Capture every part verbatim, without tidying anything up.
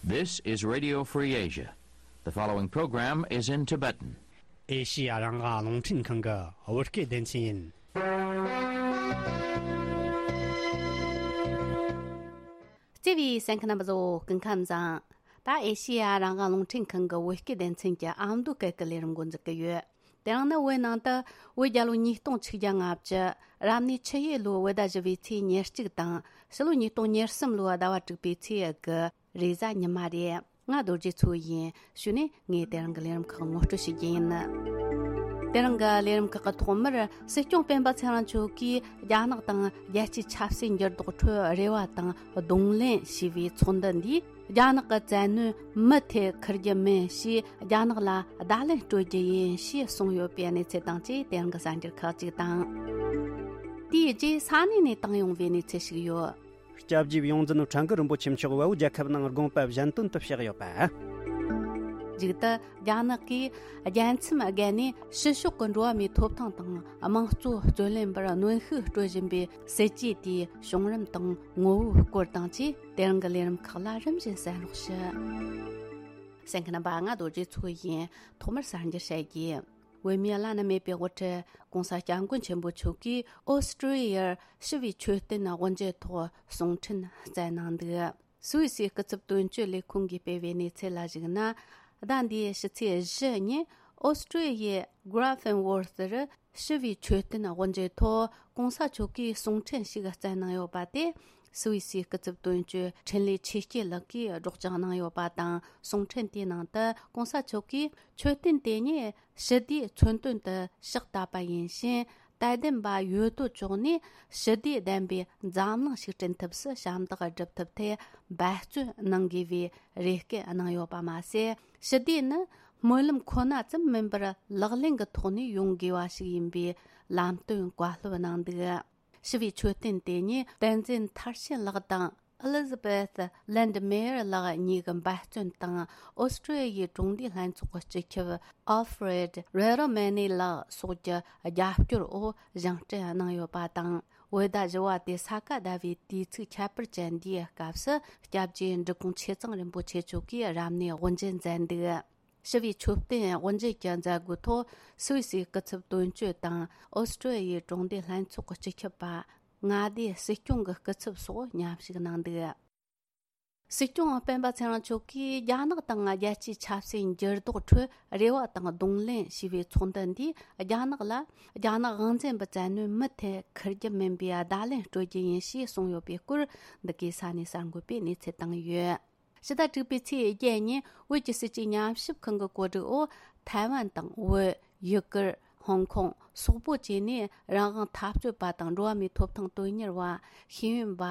This is Radio Free Asia. The following program is in Tibetan. ཨེ་ཤི་ཡ་རང་དབང་རླུང་འཕྲིན་ཁང་གི་བོད་སྐད་སྡེ་ཚན་ཡིན། བརྩེ་བའི་གསན་མཁན་རྣམ་པ་ཚོ་སྐུ་ཁམས་བཟང་། ད་ཨེ་ཤི་ཡ་རང་དབང་རླུང་འཕྲིན་ཁང་གི་བོད་སྐད་སྡེ་ཚན་གྱི་ཨ་མདོ་སྐད་ཀྱི་ལས་རིམ་འགོ་འཛུགས་ཀྱི་ཡོད། དེ་རིང་ནི་བོད་ནང་དུ་བོད་རྒྱལ་ལོ་ཉིས་སྟོང་ཆིག་བརྒྱ་ལྔ་བཅུ། རབ་གནས་ཆུ་ཡོས་ལོའི་བོད་ཟླ་བཞི་པའི་ཚེས་ཉེར་གཅིག་དང་། ཕྱི་ལོ་ཉིས་སྟོང་ཉེར་གསུམ་ལོའི་ཟླ་བ་དྲུག་པའི་ཚེས་དགུ་རེས་གཟའ་ཉི་མ་རེད། ང་རྡོ་རྗེ་མཚོ་ཡིན། གཞུག་ནས་ངས་དེ་རིང་གི་ལས་རིམ་ཁག་ངོ་སྤྲོད་ཞུ་རྒྱུ་ཡིན། དེ་རིང་གི་ལས་རིམ་ཁག་གི་ཐོག་མར་སྲིད་སྐྱོང་སྤེན་པ་ཚེ་རིང་མཆོག་གིས་རྒྱ་ནག་དང་རྒྱལ་སྤྱིའི་ཆབ་སྲིད་འགྱུར་ལྡོག་ཁྲོད་རེ་བ་དང་གདོང་ལེན་ཞེས་པའི་ཚོགས་འདུ་འདིས། རྒྱ་ནག་གི་བཙན་གནོན་མུ་མཐུད་འཁུར་རྒྱུ་མིན་ཞེས། རྒྱ་ནག་ལ་བརྡ་ལན་སྤྲོད་རྒྱུ་ཡིན་ཞེས་གསུངས་ཡོད་པའི་གནས་ཚུལ་དང་བཅས། དེ་རིང་གི་གསར་འགྱུར་ཁག་ཅིག་དང་། དེའི་རྗེས་ས་གནས་ནས་བཏང་ཡོང་བའི་གནས་ཚུལ་ཞིག་ཡོད། སྐྱབས་རྗེ་ཡོངས་འཛིན་ཁྲ་འགུ་རིན་པོ་ཆེ་མཆོག་བལ་པོ་རྒྱལ་ཁབ་ནང་དགོངས་པ་གཞན་དོན་དུ་གཤེགས་ཡོད་པ། མཇུག་ཏུ་རྒྱ་ནག་གིས་རྒྱལ་མཚམས་བརྒལ་ནས་ཕྱི་ཕྱོགས་ཀྱི་འགྲོ་བ་མིའི་ཐོབ་ཐང་དང་དམངས་གཙོ་རྩོད་ལེན་པར་གནོན་ཤུགས་སྤྲོད་བཞིན་པའི་སྲིད་ཇུས་དེའི་བྱུང་རིམ་དང་ངོ་བོའི་སྐོར་དང་བཅས། དེ་རིང་གི་ལས་རིམ་ཁག་ལ་རིམ་བཞིན་གསན་རོགས་ཞུ། གསན་མཁན་རྣམ་པ། ང་རྡོ་རྗེ་མཚོ་ཡིན། ཐོག་མར་གསར་འགྱུར་བཤད་རྒྱུ། བོད་མིའི་བླ་ན་མེད་པའི་དབུ་ཁྲིད་༸གོང་ས་༸སྐྱབས་མགོན་ཆེན་པོ་མཆོག་གིས་ཨོ་སི་ཀྲི་ཡར་ཞི་བའི་མཆོད་རྟེན་དབུ་འབྱེད་ཐོག་གསུང་འཕྲིན་བསྩལ་གནང་འདུག། སུད་སིའི་སྐུ་ཚབ་དོན་གཅོད་ལས་ཁུངས་ཀྱིས་སྤེལ་བའི་གནས་ཚུལ་ལ་གཞིགས་ན། ཟླ་འདིའི་ཕྱི་ཚེས་བཞི་ཉིན་ཨོ་སི་ཀྲི་ཡའི་གྷ་ར་ཕེན་ཝོར་ཐར་ཞི་བའི་མཆོད་རྟེན་དབུ་འབྱེད་ཐོག་༸གོང་ས་མཆོག་གིས་གསུང་འཕྲིན་ཞིག་བསྩལ་གནང་ཡོད་པ་དེ། སུད་སིའི་སྐུ་ཚབ་དོན་གཅོད་འཕྲིན་ལས་ཆོས་སྐྱིད་ལགས་ཀྱིས་སྒྲོག་སྦྱང་གནང་ཡོད་པ་དང་། གསུང་འཕྲིན་དེའི་ནང་དུ་༸གོང་ས་མཆོག་གིས་མཆོད་རྟེན་དེ་ཉིད་ཞི་བདེའི་མཚོན་དོན་དུ་ཕྱག་བཏབ་པ་ཡིན་ཞིང་། དད་ལྡན་པ་ཡོད་དོ་ཅོག་ནས་ཞི་བདེ་ལྡན་པའི་འཛམ་གླིང་ཞིག་བསྐྲུན་ཐབས་སུ་ཞབས་འདེགས་སྒྲུབ་ཐབས་ཐད་འབད་བརྩོན་གནང་དགོས་པའི་རེ་སྐུལ་གནང་ཡོད་པ་མ་ཟད། ཞི་བདེ་ནི་སྨོན་ལམ་ཁོ་ན་ཙམ་མིན་པར་ལག་ལེན་གྱི་ཐོག་ནས་ཡོང་དགོས་པ་ཞིག་ཡིན་པའི་ལམ་སྟོན་བཀའ་སློབ་གནང་འདུག། ཞི་བའི་མཆོད་རྟེན་དེ་ཉིད་བསྟན་འཛིན་མཐར་ཕྱིན་ལགས་དང་། ཨེ་ལི་ཛ་བེ་ཐི་ལན་ཌི་མེ་ཡར་ལགས་གཉིས་ཀྱི་འབད་བརྩོན་དང་། ཨོ་སི་ཀྲི་ཡའི་གྲོང་སྡེའི་ལྷན་ཚོགས་ཀྱི་སྤྱི་ཁྱབ་ཨལ་ཧྥི་རེད་རེ་རོ་མེ་ནི་ལགས་སོགས་ཀྱི་རྒྱབ་སྐྱོར་འོག་བཞེངས་སྐྲུན་གནང་ཡོད་པ་དང་། བོད་ཟླ་བཞི་པ་སྟེ་ས་ག་ཟླ་བའི་དུས་ཚིགས་ཁྱད་པར་ཅན་འདིའི་སྐབས་སུ། སྐྱབས་རྗེ་འབྲི་གུང་ཆོས་གཙང་རིན་པོ་ཆེ་མཆོག་གིས་རབ་གནས་དབུ་འབྱེད་མཛད་འདུག། ཞི་བའི་མཆོད་རྟེན་དབུ་འབྱེད་ཀྱི་མཛད་སྒོའི་ཐོག་སུད་སིའི་སྐུ་ཚབ་དོན་གཅོད་དང་། ཨོ་སི་ཀྲི་ཡའི་གྲོང་སྡེའི་ལྷན་ཚོགས་ཀྱི་སྤྱི་ཁྱབ་པ་མངའ་སྡེའི་སྲིད་སྐྱོང་གི་སྐུ་ཚབ་སོགས་མཉམ་ཞུགས་གནང་འདུག། སྲིད་སྐྱོང་སྤེན་པ་ཚེ་རིང་མཆོག་གིས་རྒྱ་ནག་དང་རྒྱལ་སྤྱིའི་ཆབ་སྲིད་འགྱུར་ལྡོག་ཁྲོད་རེ་བ་དང་གདོང་ལེན་ཞེས་པའི་ཚོགས་འདུ་འདིས། རྒྱ་ནག་ལ་རྒྱ་ནག་དབང་འཛིན་པའི་བཙན་གནོན་མུ་མཐུད་འཁུར་རྒྱུ་མིན་པའི་བརྡ་ལན་སྤྲོད་རྒྱུ་ཡིན་ཞེས་གསུངས་ཡོད་པའི་སྐོར། འདི་གའི་ས་གནས་གསར་འགོད་པས་གནས་ཚུལ་བཏང་ཡོད། ཕྱི་ཟླ་དྲུག་པའི་ཚེས་བརྒྱད་ཉིན་བོད་ཀྱི་སྲིད་ཇུས་ཉམས་ཞིབ་ཁང་གི་གོ་སྒྲིག་འོག་ཐའེ་ཝན་དང་བོད། ཡུ་གུར། ཧོང་ཀོང་སོག་པོ་བཅས་ནས་རང་དབང་འཐབ་རྩོད་པ་དང་འགྲོ་བ་མིའི་ཐོབ་ཐང་དོན་གཉེར་བ། ཤེས་ཡོན་པ།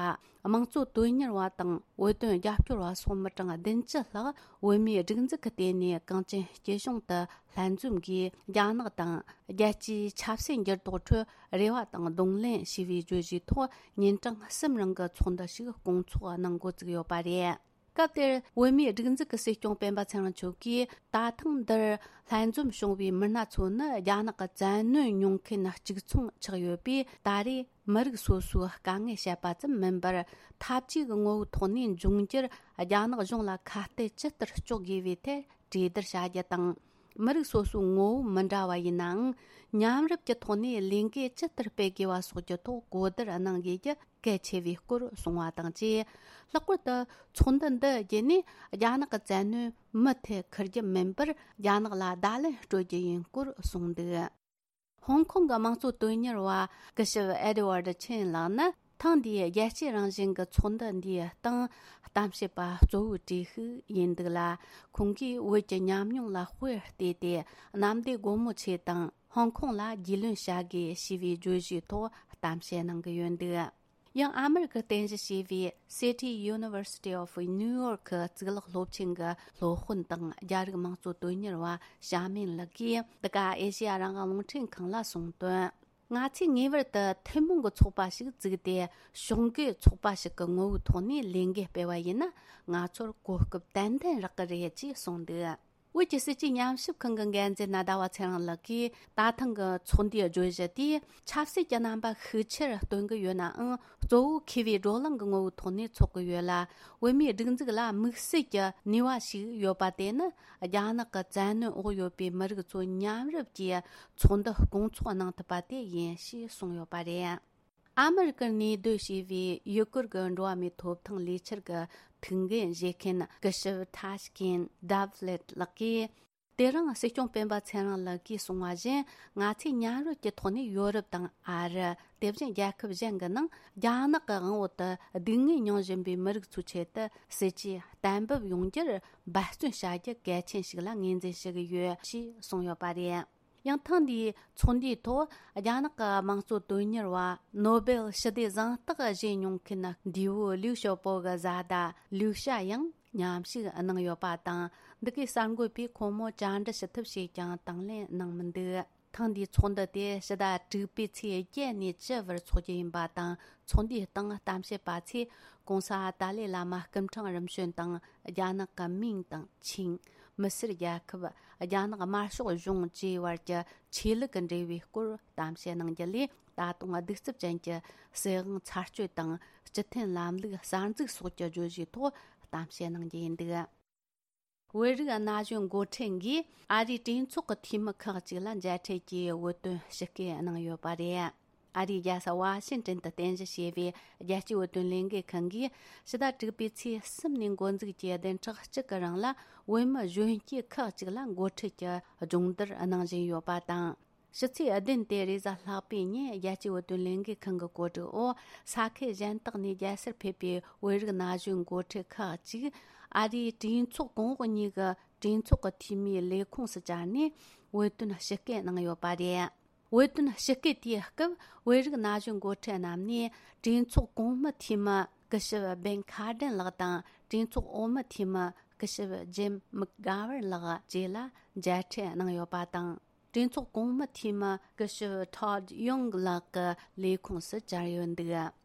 དམངས་གཙོ་དོན་གཉེར་བ་དང་བོད་དོན་རྒྱབ་སྐྱོར་བ་སོགས་མི་གྲངས་བདུན་ཅུ་ལྷག་བོད་མིའི་སྒྲིག་འཛུགས་ཀྱི་ལྟེ་གནས་གངས་ཅན་སྐྱིད་གཤོངས་དུ་ལྷན་འཛོམས་ཀྱིས། རྒྱ་ནག་དང་རྒྱལ་སྤྱིའི་ཆབ་སྲིད་འགྱུར་ལྡོག་ཁྲོད་རེ་བ་དང་གདོང་ལེན་ཞེས་པའི་བརྗོད་གཞིའི་ཐོག་ཉིན་གྲངས་གསུམ་རིང་གི་ཚོགས་འདུ་ཞིག་སྐོང་ཚོགས་གནང་འགོ་བཙུགས་ཡོད་པ་རེད། སྐབས་དེར་བོད་མིའི་སྒྲིག་འཛུགས་ཀྱི་སྲིད་སྐྱོང་སྤེན་པ་ཚེ་རིང་མཆོག་གིས། ད་ཐེངས་འདིར་ལྷན་འཛོམས་བྱུང་བའི་མི་སྣ་ཚོ་ནི་རྒྱ་ནག་གི་བཙན་གནོན་མྱོང་མཁན་གཅིག་མཚུངས་ཆགས་ཡོད་པས། ད་རེས་མི་རིགས་སོ་སོའི་དཀའ་ངལ་བཤད་པ་ཙམ་མིན་པར། འཐབ་ཇུས་ཀྱི་ངོ་བོའི་ཐོག་ནས་འབྱུང་འགྱུར་རྒྱ་ནག་གཞུང་ལ་ཁ་གཏད་ཇི་ལྟར་གཅོག་དགོས་པའི་ཐད་གྲོས་བསྡུར་བྱ་རྒྱུ་དང་། མི་རིགས་སོ་སོའི་ངོ་བོ་མི་འདྲ་བ་ཡིན་ནའང་། མཉམ་རུབ་ཀྱི་ཐོག་ནས་ལས་འགུལ་ཇི་ལྟར་སྤེལ་དགོས་པ་སོགས་ཀྱི་ཐོག་གོ་བསྡུར་གནང་དགོས་རྒྱུ་གལ་ཆེ་བའི་སྐོར་གསུངས་པ་དང་བཅས། ལྷག་པར་དུ་ཚོགས་འདུ་འདི་བརྒྱུད་ནས་རྒྱ་ནག་གི་བཙན་གནོན་མུ་མཐུད་འཁུར་རྒྱུ་མིན་པར། རྒྱ་ནག་ལ་བརྡ་ལན་སྤྲོད་རྒྱུ་ཡིན་སྐོར་གསུངས་འདུག། ཧོང་ཀོང་གི་དམངས་གཙོ་དོན་གཉེར་བ་སྐུ་ཞབས་ཨེ་ཌི་ཝར་ཌི་ཆིན་ལགས་ནི། ཐེངས་འདིའི་རྒྱལ་གཅེས་རང་བཞིན་གྱི་ཚོགས་འདུ་འདིའི་སྟེང་གཏམ་བཤད་པ་གཙོ་བོའི་གྲས་ཤིག་ཡིན་འདུག་ལ། ཁོང་གིས་བོད་ཀྱི་ཉམས་མྱོང་ལ་དཔེ་བལྟས་ཏེ། གནམ་བདེ་སྒོ་མོ་ཆེ་དང་། ཧོང་ཀོང་ལ་རྒྱུས་ལོན་བྱ་དགོས་ཞེས་པའི་བརྗོད་གཞིའི་ཐོག་གཏམ་བཤད་གནང་གི་ཡོད་འདུག། ཡང་ཨ་མེ་རི་ཁར་རྟེན་གཞི་བྱས་པའི་City University of New York གཙུག་ལག་སློབ་ཆེན་གྱི་སློབ་དཔོན་དང་རྒྱ་རིགས་དམངས་གཙོ་དོན་གཉེར་བ་ཞྭ་མིན་ལགས་ཀྱིས། འདི་ག་ཨེ་ཤེ་ཡ་རང་དབང་རླུང་འཕྲིན་ཁང་ལ་གསུངས་དོན། ང་ཚོས་ངེས་པར་དུ་ཐུན་མོང་གི་ཚོགས་པ་ཞིག་བཙུགས་ཏེ། ཕྱོགས་འགལ་ཚོགས་པ་ཞིག་གི་ངོ་བོའི་ཐོག་ནས་ལས་འགུལ་སྤེལ་བ་ཡིན་ན། ང་ཚོར་གོ་སྐབས་ཏན་ཏན་རག་གི་རེད་ཅེས་གསུངས་འདུག། བོད་ཀྱི་སྲིད་ཇུས་ཉམས་ཞིབ་ཁང་གི་འགན་འཛིན་ཟླ་བ་ཚེ་རིང་ལགས་ཀྱིས། ད་ཐེངས་ཀྱི་ཚོགས་འདུའི་བརྗོད་གཞི་དེས་ཆབ་སྲིད་ཀྱི་རྣམ་པ་ཤུགས་ཆེར་སྟོན་གྱི་ཡོད་ནའང་། གཙོ་བོ་མཁས་པའི་བགྲོ་གླེང་གི་ངོ་བོའི་ཐོག་ནས་འཚོགས་ཀྱི་ཡོད་ལ། བོད་མིའི་སྒྲིག་འཛུགས་ལ་དམིགས་བསལ་གྱི་ནུས་པ་ཞིག་ཡོད་པ་དེ་ནི། རྒྱ་ནག་གི་བཙན་གནོན་འོག་ཡོད་པའི་མི་རིགས་ཚོ་མཉམ་རུབ་ཀྱིས་ཚོགས་འདུ་སྐོང་ཚོགས་གནང་ཐུབ་པ་དེ་ཡིན་ཞེས་གསུངས་ཡོད་པ་རེད། ཨ་མི་རི་ཀར་གནས་སྡོད་བྱས་པའི་ཡུ་གུར་གྱི་འགྲོ་བ་མིའི་ཐོབ་ཐང་ལས་འཆར་གྱི་ཐུགས་འགན་བཞེས་མཁན་སྐུ་ཞབས་ཐཱ་ཤ་ཀིན་ཌབ་ལེད་ལགས་ཀྱིས། དེ་རིང་སྲིད་སྐྱོང་སྤེན་པ་ཚེ་རིང་ལགས་ཀྱིས་གསུངས་པ་བཞིན། ང་ཚོས་མཉམ་རུབ་ཀྱི་ཐོག་ནས་ཡོ་རོབ་དང་ཨ་རི། དེ་བཞིན་རྒྱལ་ཁབ་གཞན་གྱི་ནང་རྒྱ་ནག་གི་དབང་འོག་ཏུ་སྡུག་བསྔལ་མྱོང་བཞིན་པའི་མི་རིགས་ཚོའི་ཆེད་དུ་སྲིད་ཇུས་གཏན་འབེབས་ཡོང་རྒྱུར་འབད་བརྩོན་བྱ་རྒྱུ་གལ་ཆེན་ཞིག་ལ་ངོས་འཛིན་ཞུ་གི་ཡོད་ཞེས་གསུངས་ཡོད་པ་རེད། ཡང་ཐེངས་འདིའི་ཚོགས་འདུའི་ཐོག་རྒྱ་ནག་གི་དམངས་གཙོ་དོན་གཉེར་བ་ནོ་སྦེལ་ཞི་བདེ་གཟེངས་རྟགས་བཞེས་མྱོང་མཁན་འདས་པོ་ལིའུ་ཞའོ་པོ་གི་བཟའ་ཟླ་ལིའུ་ཞ་ཡང་མཉམ་ཞུགས་གནང་ཡོད་པ་དང་། འདི་གའི་གསར་འགོད་པས་ཁོང་མོ་བཅར་འདྲི་ཞུ་ཐབས་བྱས་ཀྱང་དང་ལེན་གནང་མི་འདུག་ཐེངས་འདིའི་ཚོགས་འདུ་དེ་ཕྱི་ཟླ་དྲུག་པའི་ཚེས་བརྒྱད་ནས་བཅུ་བར་འཚོགས་རྒྱུ་ཡིན་པ་དང་། ཚོགས་འདུའི་སྟེང་གཏམ་བཤད་པ་ཚོས་༸གོང་ས་ཏཱ་ལའི་བླ་མ་སྐུ་ཕྲེང་རིམ་བྱོན་དང་། རྒྱ་ནག་གི་མིང་དང་ཆིང་། མི་སེར་རྒྱལ་ཁབ། རྒྱ་ནག་དམར་ཤོག་གཞུང་བཅས་བར་གྱི་ཆོས་ལུགས་ཀྱི་འབྲེལ་བའི་སྐོར་གཏམ་བཤད་གནང་རྒྱུ་ལས། ད་དུང་གདུག་རྩུབ་ཅན་གྱི་སྲིད་དབང་ཚར་གཅོད་དང་། སྤྱི་མཐུན་ལམ་ལུགས་གསར་འཛུགས་སོགས་ཀྱི་བརྗོད་གཞིའི་ཐོག་གཏམ་བཤད་གནང་རྒྱུ་ཡིན་འདུག་བོད་རིགས་ན་གཞོན་འགོ་ཁྲིད་འགས་ཨ་རིའི་གྲོས་ཚོགས་ཀྱི་འཐུས་མི་ཁག་ཅིག་ལ་མཇལ་འཕྲད་ཀྱིས་བོད་དོན་ཞུ་སྐུལ་གནང་ཡོད་པ་རེད། ཨ་རིའི་རྒྱལ་ས་ཝ་ཤིང་ཏོན་དུ་རྟེན་གཞི་བྱས་པའི་རྒྱལ་སྤྱིའི་བོད་དོན་ལས་འགུལ་ཁང་གིས་ཕྱི་ཟླ་དྲུག་པའི་ཚེས་གསུམ་ནས་འགོ་འཛུགས་ཀྱིས་བདུན་ཕྲག་གཅིག་གི་རིང་ལ་བོད་མི་གཞོན་སྐྱེས་ཁག་ཅིག་ལ་འགོ་ཁྲིད་ཀྱི་སྦྱོང་བརྡར་གནང་བཞིན་ཡོད་པ་དང་། ཕྱི་ཚེས་བདུན་སྟེ་རེས་གཟའ་ལྷག་པའི་ཉིན་རྒྱལ་སྤྱིའི་བོད་དོན་ལས་འགུལ་ཁང་གི་གོ་སྒྲིག་འོག་ས་ཁུལ་གཞན་དག་ནས་རྒྱལ་སར་ཕེབས་པའི་བོད་རིགས་ན་གཞོན་འགོ་ཁྲིད་ཁག་ཅིག་ཨ་རིའི་གྲོས་ཚོགས་གོང་འོག་གཉིས་ཀྱི་གྲོས་ཚོགས་ཀྱི་འཐུས་མིའི་ལས་ཁུངས་སུ་བཅར་ནས་བོད་དོན་ཞུ་སྐུལ་གནང་ཡོད་པ་རེད། བོད་དོན་ཞུ་སྐུལ་དེའི་སྐབས་བོད་རིགས་ན་གཞོན་འགོ་ཁྲིད་རྣམས་ནས་གྲོས་ཚོགས་གོང་མའི་འཐུས་མི་སྐུ་ཞབས་བེན་ཁ་ཏྲན་ལགས་དང་། གྲོས་ཚོགས་འོག་མའི་འཐུས་མི་སྐུ་ཞབས་ཇིམ་མག་གྷ་ཝར་ལགས་བཅས་ལ་མཇལ་འཕྲད་གནང་ཡོད་པ་དང་། གྲོས་ཚོགས་གོང་མའི་འཐུས་མི་སྐུ་ཞབས་ཐོད་ཡོང་ལགས་ཀྱི་ལས་ཁུངས་སུ་བཅར་ཡོད་འདུག་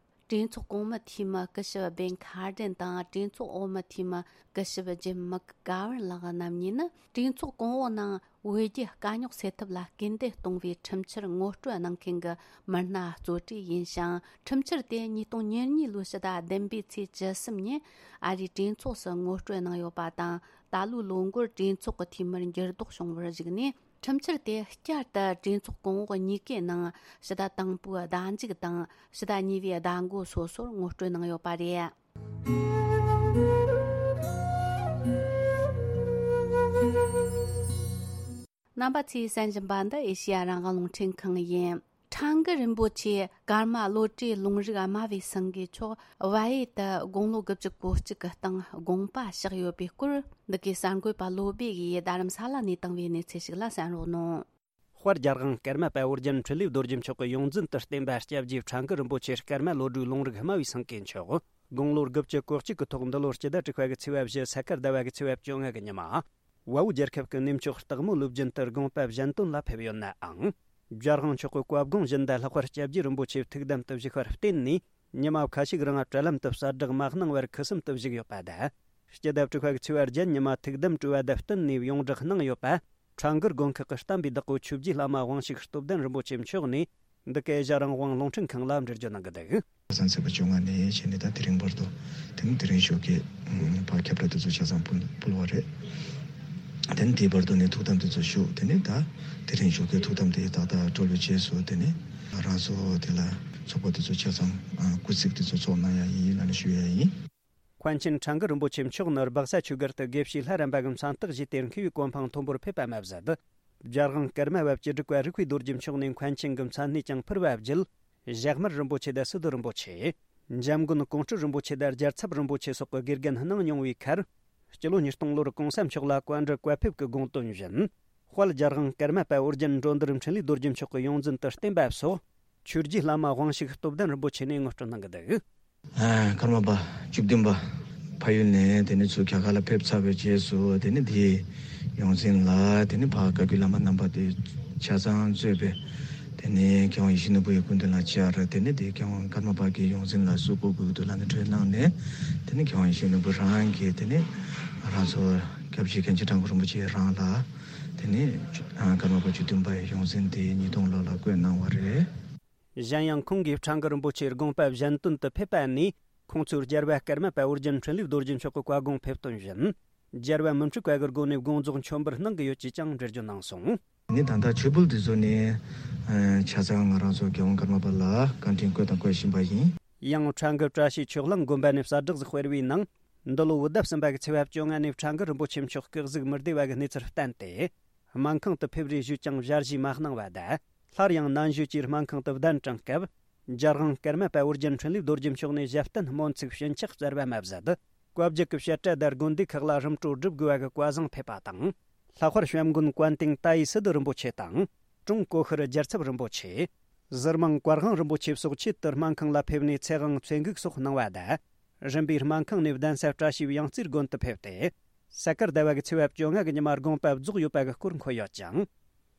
གྲོས་ཚོགས་གོང་མའི་འཐུས་མི་སྐུ་ཞབས་བེན་ཁ་ཏྲན་དང་། གྲོས་ཚོགས་འོག་མའི་འཐུས་མི་སྐུ་ཞབས་ཇིམ་མག་གྷ་ཝར་ལགས་རྣམ་གཉིས་ནི་གྲོས་ཚོགས་གོང་འོག་ནང་བོད་རྒྱའི་དཀའ་རྙོག་སེལ་ཐབས་ལ་སྐུལ་འདེད་གཏོང་བའི་ཁྲིམས་འཆར་ངོ་སྤྲོད་གནང་མཁན་གྱི་མི་སྣ་གཙོ་གྲས་ཡིན་ཞིང་། ཁྲིམས་འཆར་དེ་ཉིས་སྟོང་ཉེར་གཉིས་ལོའི་ཕྱི་ཟླ་བདུན་པའི་ཚེས་བཅུ་གསུམ་ཉིན་ཨ་རིའི་གྲོས་ཚོགས་སུ་ངོ་སྤྲོད་གནང་ཡོད་པ་དང་། ད་ལོའི་ལོ་འགོར་གྲོས་ཚོགས་ཀྱི་འཐུས་མིར་འགྱུར་ལྡོག་བྱུང་བར་གཞིགས་ནས། ཁྲིམས་འཆར་དེ་བསྐྱར་དུ་གྲོས་ཚོགས་གོང་འོག་གཉིས་ཀའི་ནང་ཕྱི་ཟླ་དང་པོའི་ཟླ་མཇུག་དང་ཕྱི་ཟླ་གཉིས་པའི་ཟླ་མགོ་སོ་སོར་ངོ་སྤྲོད་གནང་ཡོད་པ་རེད། རྣམ་པ་ཚོས་གསན་བཞིན་པ་འདི་ཨེ་ཤེ་ཡ་རང་དབང་རླུང་འཕྲིན་ཁང་ཡིན། ཁྲང་ཀི་རིན་པོ་ཆེ་ཀརྨ་བློ་གྲོས་ལུང་རིགས་སྨྲ་བའི་སེང་གེ་མཆོག་བལ་ཡུལ་དུ་དགུང་ལོ་དགུ་བཅུ་གོ་གཅིག་གི་སྟེང་དགོངས་པ་གཤེགས་ཡོད་པའི་སྐོར། འདི་གའི་གསར་འགོད་པ་བློ་བྷེ་ཡིས་རྡ་རམ་ས་ལ་ནས་བཏང་བའི་གནས་ཚུལ་ཞིག་ལ་གསན་རོགས་གནང་། དཔལ་རྒྱལ་དབང་ཀརྨ་པ་ཨོ་རྒྱན་འཕྲིན་ལས་རྡོ་རྗེ་མཆོག་གི་ཡོངས་འཛིན་དུ་བསྟེན་པ་སྐྱབས་རྗེ་ཁྲང་ཀི་རིན་པོ་ཆེ་ཀརྨ་བློ་གྲོས་ལུང་རིགས་སྨྲ་བའི་སེང་གེ་མཆོག་དགུང་ལོ་དགུ་བཅུ་གོ་གཅིག་གི་ཐོག་འདི་ལོར་སྤྱི་ཟླ་དྲུག་པ་གི་ཚེས་པ་བཞི། ས་ཁར་ཟླ་བ་གི་ཚེས་པ་བཅོ་ལྔ་གི་ཉི་མ། བལ་པོ་རྒྱལ་ཁབ་ཀྱི་གནས་མཆོག་སྟག་མོ་ལུགས་རྒྱུན་དུ་དགོངས་པ་བཞེས་དོན་ལ་ཕེབས་ཡོད་ནའང་། རྒྱལ་དབང་མཆོག་གི་བཀའ་དགོངས་བཞིན་དུ་ལྷག་པར་སྐྱབས་རྗེ་རིན་པོ་ཆེ་ཐུགས་དམ་དུ་བཞུགས་པར་བརྟེན་ནས། ཉི་མ་ཁ་ཤས་ཀྱི་རིང་བྲེལ་ལམ་དུ་གསལ་བསྒྲགས་མ་གནང་བར་ཁུ་སིམ་དུ་བཞུགས་ཡོད་པ་དང་། སྤྱི་ཟླ་དྲུག་པ་གི་ཚེས་པ་བརྒྱད་ཉི་མ་ཐུགས་དམ་སྤྲོ་བ་དང་བསྟུན་ནས་ཡོངས་བསྒྲགས་གནང་ཡོད་པ། ཁྲང་ཀིར་དགོན་ཁག་གི་བསྟན་པའི་བདག་པོ་ཆོས་རྗེ་བླ་མ་དབང་ཕྱུག་སྟོབས་ལྡན་རིན་པོ་ཆེ་མཆོག་ནས་འདི་གའི་ཨེ་ཤ་ཡ་རང་དབང་རླུང་འཕྲིན་ཁང་ལ་འགྲེལ་བརྗོད་གནང་གི་འདུག་ཁ་སང་ཚེས་པ་བཅོ་ལྔ་ནས་བྱས་ནས་ད་དེ་རིང་བར་དུ། དེ་ནི་དེ་རིང་ཞོགས་ཀས་ཕར་ཁྱབ་བསྒྲགས་དེ་ཚོ་ཆ་ཚང་ཕུལ་ཕུལ་བ་རེད། དེ་ནི་དེའི་བར་དུ་ནས་ཐུགས་དམ་དེ་ཚོ་བཞུགས། དེ་ནི་ད་དེ་རིང་ཞོགས་ཀས་ཐུགས་དམ་དེ་ཏག་ཏག་གྲོལ་བའི་རྗེས་སུ། དེ་ནི་རང་ཚོ་དེ་ལ་ཚོགས་པ་དེ་ཚོ་ཆ་ཚང་སྐུལ་ཚིག་དེ་ཚོ་ཚོགས་གནང་ཡ་ཡིན་ལབ་ནས་ཞུ་ཡ་ཡིན། མཁན་ཆེན་ཁྲང་ཀི་རིན་པོ་ཆེ་མཆོག་ནི་སྦག་ས་ཆོས་སྒར་དུ་དགེ་བཤེས་ལྷ་རམས་པ་གི་མཚན་རྟགས་བཞེས་ཏེ་མཁས་པའི་གོ་འཕང་མཐོན་པོར་ཕེབས་པ་མ་ཟད། རྒྱལ་དབང་ཀརྨ་པ་བཅུ་དྲུག་པ་རིག་པའི་རྡོ་རྗེ་མཆོག་ནས་མཁན་ཆེན་གྱི་མཚན་གནས་ཀྱང་ཕུལ་བ་བརྒྱུད། ཞྭ་དམར་རིན་པོ་ཆེ་དང་སི་ཏུ་རིན་པོ་ཆེ། འཇམ་མགོན་ཀོང་སྤྲུལ་རིན་པོ་ཆེ་དང་རྒྱལ་ཚབ་རིན་པོ་ཆེ་སོགས་ཀྱི་དགེ་རྒན་གནང་མྱོང་བའི་ཁར། སྤྱི་ལོ་ཉིས་སྟོང་ལོར་གོང་ས་མཆོག་ལ་བཀའ་འདྲི་བཀའ་ཕེབས་ཀྱི་དགོངས་དོན་བཞིན། དཔལ་རྒྱལ་དབང་ཀརྨ་པ་ཨོ་རྒྱན་འགྲོ་འདུལ་འཕྲིན་ལས་རྡོ་རྗེ་མཆོག་གི་ཡོངས་འཛིན་དུ་བསྟེན་པ་སོགས། ཆོས་རྗེ་བླ་མ་དབང་ཕྱུག་སྟོབས་ལྡན་རིན་པོ་ཆེ་ནས་ངོ་སྤྲོད་གནང་གི་འདུག་ཨ། ཀརྨ་པ་བཅུ་བདུན་པ་ཕ་ཡུལ་ནས་དེ་ནས་ཚུར་རྒྱ་གར་ལ་ཕེབས་ཚར་བའི་རྗེས་སུ། དེ་ནས་དེའི་ཡོངས་འཛིན་ལ་དེ་ནས་ཕར་བཀའ་བརྒྱུད་བླ་མ་རྣམ་པ་དེ་ཆ་ཚང་གཙོས་པའི་དེ་ནས་མཁས་དབང་ཡིད་བཞིན་ནོར་བུ་ཡི་སྐུ་མདུན་ལ་བཅར། དེ་ནས་དེ་མཁས་དབང་ཀརྨ་པ་གི་ཡོངས་འཛིན་ལ་གསོལ་ཕུར་ཕུལ་དུ་ལ་ནི་གྲོས་གནང་ནས། དེ་ནས་མཁས་དབང་ཡིད་བཞིན་ནོར་བུ་རང་གིས་དེ་ནས་རང་ཚོ་ སྐབས་ཤིག་མཁན་ཆེན་ཁྲ་འགུ་རིན་པོ་ཆེ་རང་ལ་དེ་ནས་ཀརྨ་པ་བཅུ་བདུན་པ་ཡི་ཡོངས་འཛིན་དེ་ཉིས་སྟོང་ལོ་ལ་བསྐོས་གནང་བ་རེད། གཞན་ཡང་ཁོང་གིས་ཁྲ་འགུ་རིན་པོ་ཆེའི་དགོངས་པ་གཞན་དོན་དུ་ཕེབས་པ་ནས་ཁོང་ཚོས་རྒྱལ་བ་ཀརྨ་པ་ཨོ་རྒྱན་འཕྲིན་ལས་རྡོ་རྗེ་མཆོག་གི་བཀའ་དགོངས་ཕེབས་དོན་བཞིན། རྒྱལ་བ་མི་འཁྲུགས་པ་གི་སྒོ་ནས་དགོངས་རྫོགས་མཆོད་འབུལ་གནང་གི་ཡོད་ཅེས་ཀྱང་འགྲེལ་བརྗོད་གནང་སོང་། ནི་ད་ལྟ་ཆོས་བརྒྱུད་འདི་ཚོ་ནས་ཆ་ཚང་ང་རང་ཚོ་རྒྱལ་དབང་ཀརྨ་པ་ལ་བཀའ་དྲིན་བསྐོས་དང་བསྐོ་བཞིན་པ་ཡིན། ཡང་ཁྲ་འགུ་བཀྲ་ཤིས་ཆོས་གླིང་དགོན་པ་ནས་གསལ་བསྒྲགས་ཤིག་སྤེལ་བའི་ནང་། འདི་ལོ་བོད་ཟླ་གསུམ་པ་གི་ཚེས་པ་བཅོ་ལྔ་ནས་ཁྲ་འགུ་རིན་པོ་ཆེ་མཆོག་སྐུ་གཟུགས་མི་བདེ་བ་གི་གནས་ཚུལ་བསྟན་ཏེ། སྨན་ཁང་དུ་ཕེབས་རེས་ཞུས་ཀྱང་ཞལ་བཞེས་མ་གནང་བ་དང་། སླར་ཡང་ནན་ཞུ་གྱིས་སྨན་ཁང་དུ་གདན་དྲངས་སྐབས། རྒྱལ་དབང་ཀརྨ་པ་ཨོ་རྒྱན་འཕྲིན་ལས་རྡོ་རྗེ་མཆོག་ནས་ཞབས་བརྟན་སྨོན་ཚིག་ཞུན་ཆག་སྩལ་བ་མ་ཟད། བཀའ་བརྒྱུད་ཀྱི་བཤད་གྲྭ་དང་དགོན་སྡེ་ཁག་ལ་རིམ་གྲོ་སྒྲུབ་དགོས་པ་གི་བཀའ་བཟང་ཕེབས་པ་དང་། ལྷག་པར་བྱམས་མགོན་ཀོན་ཏིང་ཏཱ་ཡི་སི་ཏུ་རིན་པོ་ཆེ་དང་། ཀྲུང་གོ་ཤྲི་རྒྱལ་ཚབ་རིན་པོ་ཆེ། ཟུར་དམངས་བཀའ་དབང་རིན་པོ་ཆེ་སོགས་ཆེད་དུ་སྨན་ཁང་ལ་ཕེབས་ནས་ཚེ་དབང་མཚོ་འགུགས་སོགས་གནང་བ་དང་། རིམ་པས་སྨན་ཁང་ནས་གདན་ས་བཀྲ་ཤིས་པའི་ཡང་རྩེ་དགོན་དུ་ཕེབས་ཏེ། ས་ཀར་ཟླ་བ་གི་ཚེས་པ་བཅོ་ལྔ་གི་ཉི་མ་དགོངས་པ་རྫོགས་ཡོད་པ་གི་སྐོར་འཁོད་ཡོད་ཅིང་།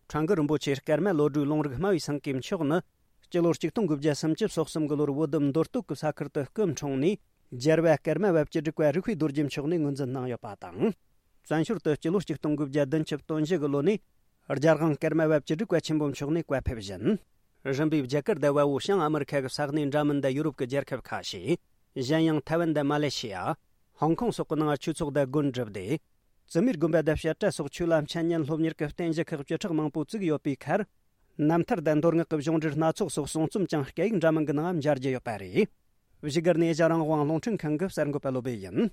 ཁྲ་འགུ་རིན་པོ་ཆེ་ཀརྨ་བློ་གྲོས་ལུང་རིགས་སྨྲ་བའི་སེང་གེ་མཆོག་ནི། སྤྱི་ལོ་ཆིག་སྟོང་དགུ་བརྒྱ་སུམ་ཅུ་སོ་གསུམ་གི་ལོར་བོད་མདོ་སྟོད་ཀྱི་ས་ཁུལ་དུ་སྐུ་འཁྲུངས་ནས། རྒྱལ་བ་ཀརྨ་པ་བཅུ་དྲུག་པ་རིགས་པའི་རྡོ་རྗེ་མཆོག་ནས་ངོས་འཛིན་གནང་ཡོད་པ་དང་། བཙན་བྱོལ་དུ་སྤྱི་ལོ་ཆིག་སྟོང་དགུ་བརྒྱ་བདུན་ཅུ་དོན་བཞི་གི་ལོ་ནས་རྒྱལ་དབང་ཀརྨ་པ་བཅུ་དྲུག་པ་ཆེན་པོ་མཆོག་ནས་བཀའ་ཕེབས་བཞིན། རིམ་པས་རྒྱ་གར་དང་བལ་པོ། བྱང་ཨ་མི་རི་ཁ་གི་ས་གནས་འདྲ་མིན་དང་ཡུ་རོབ་ཀྱི་རྒྱལ་ཁབ་ཁ་ཤས། གཞན་ཡང་ཐའེ་ཝན་དང་མ་ལེ་ཤི་ཡ། ཧོང་ཀོང་སོགས་ཀྱི་ནང་ཆོས་ཚོགས་དང་དགོན་བསྒྲུབས་ཏེ། བཙུན་མའི་དགོན་པ་དང་བཤད་གྲྭ་སོགས་ཆོས་ལ་འཆད་ཉན་སློབ་གཉེར་གྱི་རྟེན་གཞི་ཁག་བཅུ་ཕྲག་མང་པོ་བཙུགས་ཡོད་པའི་ཁར། རྣམ་ཐར་དང་མདོ་སྔགས་ཀྱི་གཞུང་འགྲེལ་སྣ་ཚོགས་སོགས་གསུང་རྩོམ་ཀྱང་སྐད་ཡིག་འདྲ་མིན་གྱི་ནང་མཇལ་རྒྱུ་ཡོད་པ་རེད། བཞུགས་སྒར་ནས་ཨེ་ཤ་རང་དབང་རླུང་འཕྲིན་ཁང་གི་གསར་འགོད་པ་བློ་བྷེ་ཡིན།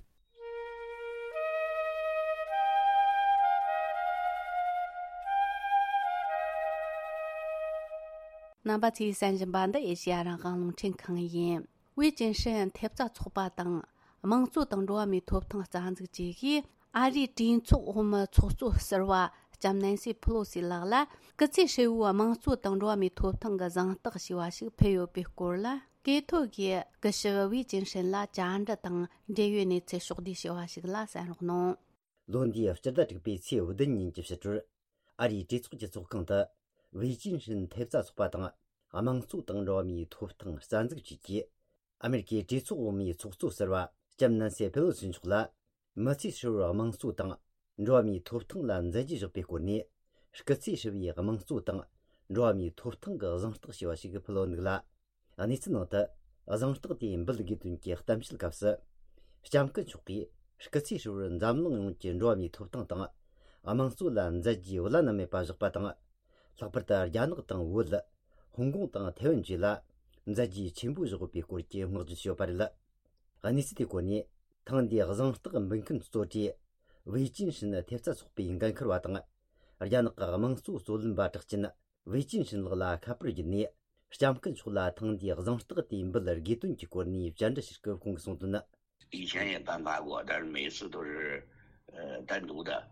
རྣམ་པ་ཚོས་གསན་བཞིན་པ་འདི་ཨེ་ཤ་རང་དབང་རླུང་འཕྲིན་ཁང་ཡིན། ཝེ་ཅིན་ཧྲིན་ཐེབས་རྩ་ཚོགས་པ་དང་། དམངས་གཙོ་དང་འགྲོ་བ་མིའི་ཐོབ་ཐང་རྩ་འཛུགས་བཅས་ཀྱིས་ཨ་རིའི་གྲོས་ཚོགས་འོག་མའི་ཚོགས་གཙོ་ཟུར་པ་ལྕམ་ནན་སི་ཕི་ལོ་སི་ལགས་ལ་སྐུ་ཚེ་ཧྲིལ་བོའི་དམངས་གཙོ་དང་འགྲོ་བ་མིའི་ཐོབ་ཐང་གི་གཟེངས་རྟགས་ཞེས་པ་ཞིག་ཕུལ་ཡོད་པའི་སྐོར་ལ། སྐད་ཐོག་གིས་སྐུ་ཞབས་ཝེ་ཅིན་ཧྲིན་ལ་བཅར་འདྲི་དང་འབྲེལ་ཡོད་གནས་ཚུལ་ཕྱོགས་བསྡུས་ཞུ་བ་ཞིག་ལ་གསན་རོགས་གནང་། ལོ་འདིའི་སྤྱི་ཟླ་དྲུག་པའི་ཚེས་བདུན་ཉིན་གྱི་ཕྱི་དྲོར། ཨ་རིའི་གྲོས་ཚོགས་ཀྱི་ཚོགས་ཁང་དུ། ཝེ་ཅིན་ཧྲིན་ཐེབས་རྩ་ཚོགས་པ་དང་། དམངས་གཙོ་དང་འགྲོ་བ་མིའི་ཐོབ་ཐང་རྩ་འཛུགས་བཅས་ཀྱིས། ཨ་མེ་རི་ཁའི་གྲོས་ཚོགས་འོག་མའི་ཚོགས་གཙོ་ཟུར་པ་ལྕམ་ནན་སི་ཕེ་ལོ་སི་མཆོག་ལ། མི་ཚེ་ཧྲིལ་བོར་དམངས་གཙོ་དང་། འགྲོ་བ་མིའི་ཐོབ་ཐང་ལ་མཛད་རྗེས་བཞག་པའི་སྐོར་ནས། སྐུ་ཚེ་ཧྲིལ་བོའི་དམངས་གཙོ་དང་། འགྲོ་བ་མིའི་ཐོབ་ཐང་གི་གཟེངས་རྟགས་ཞེས་པ་ཞིག་ཕུལ་ཡོད་འདུག་ལ། གནས་ཚུལ་ནང་དུ། གཟེངས་རྟགས་དེ་འབུལ་དགོས་དོན་གྱི་གཏམ་བཤད་སྐབས་སུ། ལྕམ་སྐུ་མཆོག་གིས་སྐུ་ཚེ་ཧྲིལ་བོར་འཛམ་གླིང་ཡོངས་ཀྱི་འགྲོ་བ་མིའི་ཐོབ་ཐང་དང་། དམངས་གཙོ་ལ་མཛད་རྗེས་བླ་ན་མེད་པ་བཞག་པ་དང་། ལྷག་པར་དུ་རྒྱ་ནག་དང་བོད། ཧོང་ཀོང་དང་ཐའེ་ཝན་བཅས་ལ་མཛད་རྗེས་ཆེན་པོ་བཞག་ཡོད་པའི་སྐོར་གྱི་བསྔགས་བརྗོད་བྱས་ཡོད་པ་རེད། གནས་ཚུལ་དེའི་སྐོར་ནས། ཐེངས་འདིའི་གཟེངས་རྟགས་འབུལ་མཁན་གཙོ་གྲས་ཝེ་ཅིན་ཧྲིན་ཐེབས་རྩ་ཚོགས་པའི་འགན་འཁུར་བ་དང་། རྒྱ་ནག་གི་དམངས་གཙོ་རྩོད་ལེན་པ་གྲགས་ཅན་ཝེ་ཅིན་ཧྲིན་ལགས་ལ་ཁ་པར་བརྒྱུད་ནས། ལྕམ་སྐུ་མཆོག་ལ་ཐེངས་འདིའི་གཟེངས་རྟགས་དེ་འབུལ་དགོས་དོན་གྱི་སྐོར་ནས་བཅར་འདྲི་ཞུས་སྐབས་ཁོང་གིས་གསུངས་དོན། 以前也颁发过，但是每次都是，呃，单独的。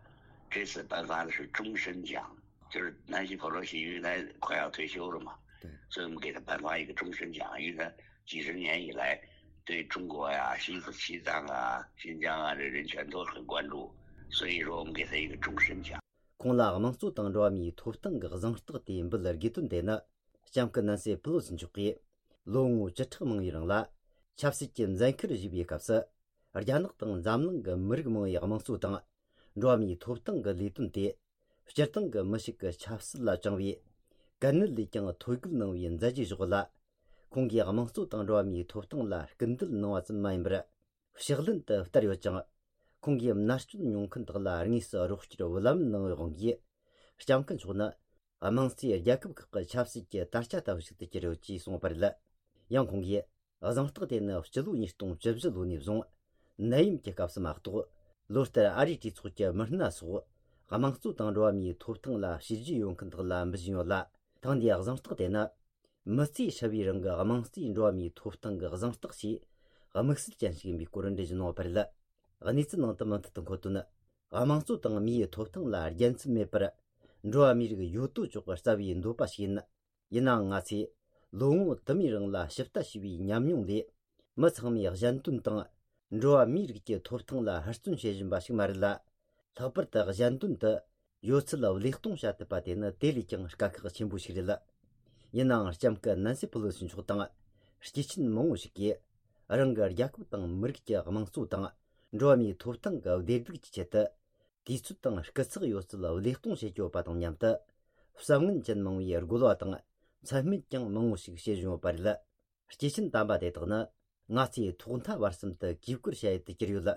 这次颁发的是终身奖，就是南希·佩洛西，因为她快要退休了嘛，对。所以我们给她颁发一个终身奖，因为她几十年以来对中国呀、西西藏啊、新疆啊这人权都很关注，所以说我们给她一个终身奖。 ཁོང་ལ་དམངས་གཙོ་དང་འགྲོ་བ་མིའི་ཐོབ་ཐང་གི་གཟེངས་རྟགས་དེ་འབུལ་དགོས་དོན་དེ་ནི། ལྕམ་སྐུ་ནན་སི་ཕེ་ལོ་སི་མཆོག་གིས་ལོ་ངོ་བཅུ་ཕྲག་མང་བའི་རིང་ལ་ཆབ་སྲིད་ཀྱི་འཛིན་ཁུལ་བཞེས་པའི་སྐབས་སུ། རྒྱ་ནག་དང་འཛམ་གླིང་གི་མི་རིགས་མང་བའི་དམངས་གཙོ་དང་འགྲོ་བ་མིའི་ཐོབ་ཐང་གི་ལས་དོན་དེ། སྤྱིར་བཏང་གི་མི་ཞིག་གི་ཆབ་སྲིད་ལ་བཅངས་པའི་གལ་གནད་ལས་ཀྱང་ཐོད་བརྒལ་གནང་བའི་མཛད་རྗེས་བཞག་ཡོད་ལ། ཁོང་གིས་དམངས་གཙོ་དང་འགྲོ་བ་མིའི་ཐོབ་ཐང་ལ་སྐུལ་འདེད་གནང་བ་ཙམ་མ་ཡིན་པར། ཕྱག་ལེན་དུ་བསྟར་ཡོད་ཅིང་། ཁོང་གིས་མནར་གཅོད་མྱོང་མཁན་དག་ལ་དངོས་སུ་རོགས་སྐྱོར་བུ་ལམ་གནང་བའི་དབང་གིས། ལྕམ་སྐུ་མཆོག་ནི་དམངས་གཙོའི་རྒྱལ་ཁབ་ཁག་གི་ཆབ་སྲིད་ཀྱི་དར་ཆ་ལྟ་བུ་ཞིག་ཏུ་གྱུར་ཡོད་ཅེས་གསུངས་པ་རེད། ཡང་ཁོང་གིས་གཟེངས་རྟགས་དེ་ནི་སྤྱི་ལོ་ཉིས་སྟོང་བཅུ་བཞི་ལོ་ནས་བཟུང་ནད་ཡམས་ཀྱི་སྐབས་སུ་མ་གཏོགས། ལོ་ལྟར་ཨ་རིའི་གྲོས་ཚོགས་ཀྱི་མི་སྣ་སོགས་དམངས་གཙོ་དང་འགྲོ་བ་མིའི་ཐོབ་ཐང་ལ་བྱས་རྗེས་ཡོད་མཁན་དག་ལ་འབུལ་བཞིན་ཡོད་ལ། ཐེངས་འདིའི་གཟེངས་རྟགས་དེ་ནི། མི་ཚེ་ཧྲིལ་བོའི་རིང་གི་དམངས་གཙོའི་འགྲོ་བ་མིའི་ཐོབ་ཐང་གི་གཟེངས་རྟགས་ཞེས་དམིགས་བསལ་ཅན་ཞིག་ཡིན་པའི་སྐོར་འགྲེལ་བརྗོད་གནང་བ་རེད། གནས་ཚུལ་ནང་དུ་མུ་མཐུད་དུ་འཁོད་དོན། དམངས་གཙོ་དང་མིའི་ཐོབ་ཐང་ལ་རྒྱལ་མཚམས་མེད་པར། འགྲོ་བ་མིའི་རིགས་ཡོད་དོ་ཅོག་གི་རྩ་བའི་འདོད་པ་ཞིག་ཡིན། ཡིན་ནའང་ང་ཚོས་ལོ་ངོ་དུ་མའི་རིང་ལ་ཞིབ་ལྟ་བྱས་པའི་ཉམས་མྱོང་ལས། མི་ཚང་མས་གཞན་དོན་དང་། འགྲོ་བ་མིའི་རིགས་ཀྱི་ཐོབ་ཐང་ལ་ཧུར་བརྩོན་བྱེད་བཞིན་པ་ཞིག་མ་རེད་ལ། ལྷག་པར་དུ་གཞན་དོན་དུ་ཡོད་ཚད་བློས་གཏོང་བྱ་ཐུབ་པ་དེ་ནི་དེ་ལས་ཀྱང་དཀའ་ཁག་ཆེན་པོ་ཞིག་རེད། ཡིན་ནའང་ལྕམ་སྐུ་ནན་སི་ཕེ་ལོ་སི་མཆོག་དང་། སྐྱེས་ཆེན་མང་བོ་ཞིག་གིས་རང་གི་རྒྱལ་ཁབ་དང་མི་རིགས་ཀྱི་དམངས་གཙོ་དང་འགྲོ་བ་མིའི་ཐོབ་ཐང་གི་བདེ་སྡུག་གི་ཆེད་དུ། དུས་ཚོད་དང་སྐུ་ཚེགས་ཡོད་ཚད་བློས་གཏོང་བྱེད་ཀྱི་ཡོད་པ་དང་མཉམ་དུ། བསམ་ངན་ཅན་མང་བོས་རྒོལ་བ་དང་། མཚན་སྨད་ཀྱང་མང་བོ་ཞིག་བྱེད་བཞིན་ཡོད་པ་རེད། སྐྱེས་ཆེན་དམ་པ་དེ་དག་ནི། ང་ཚོའི་ཐོག་མཐའ་བར་གསུམ་དུ་གུས་བཀུར་བྱ་ཡུལ་དུ་གྱུར་ཡོད།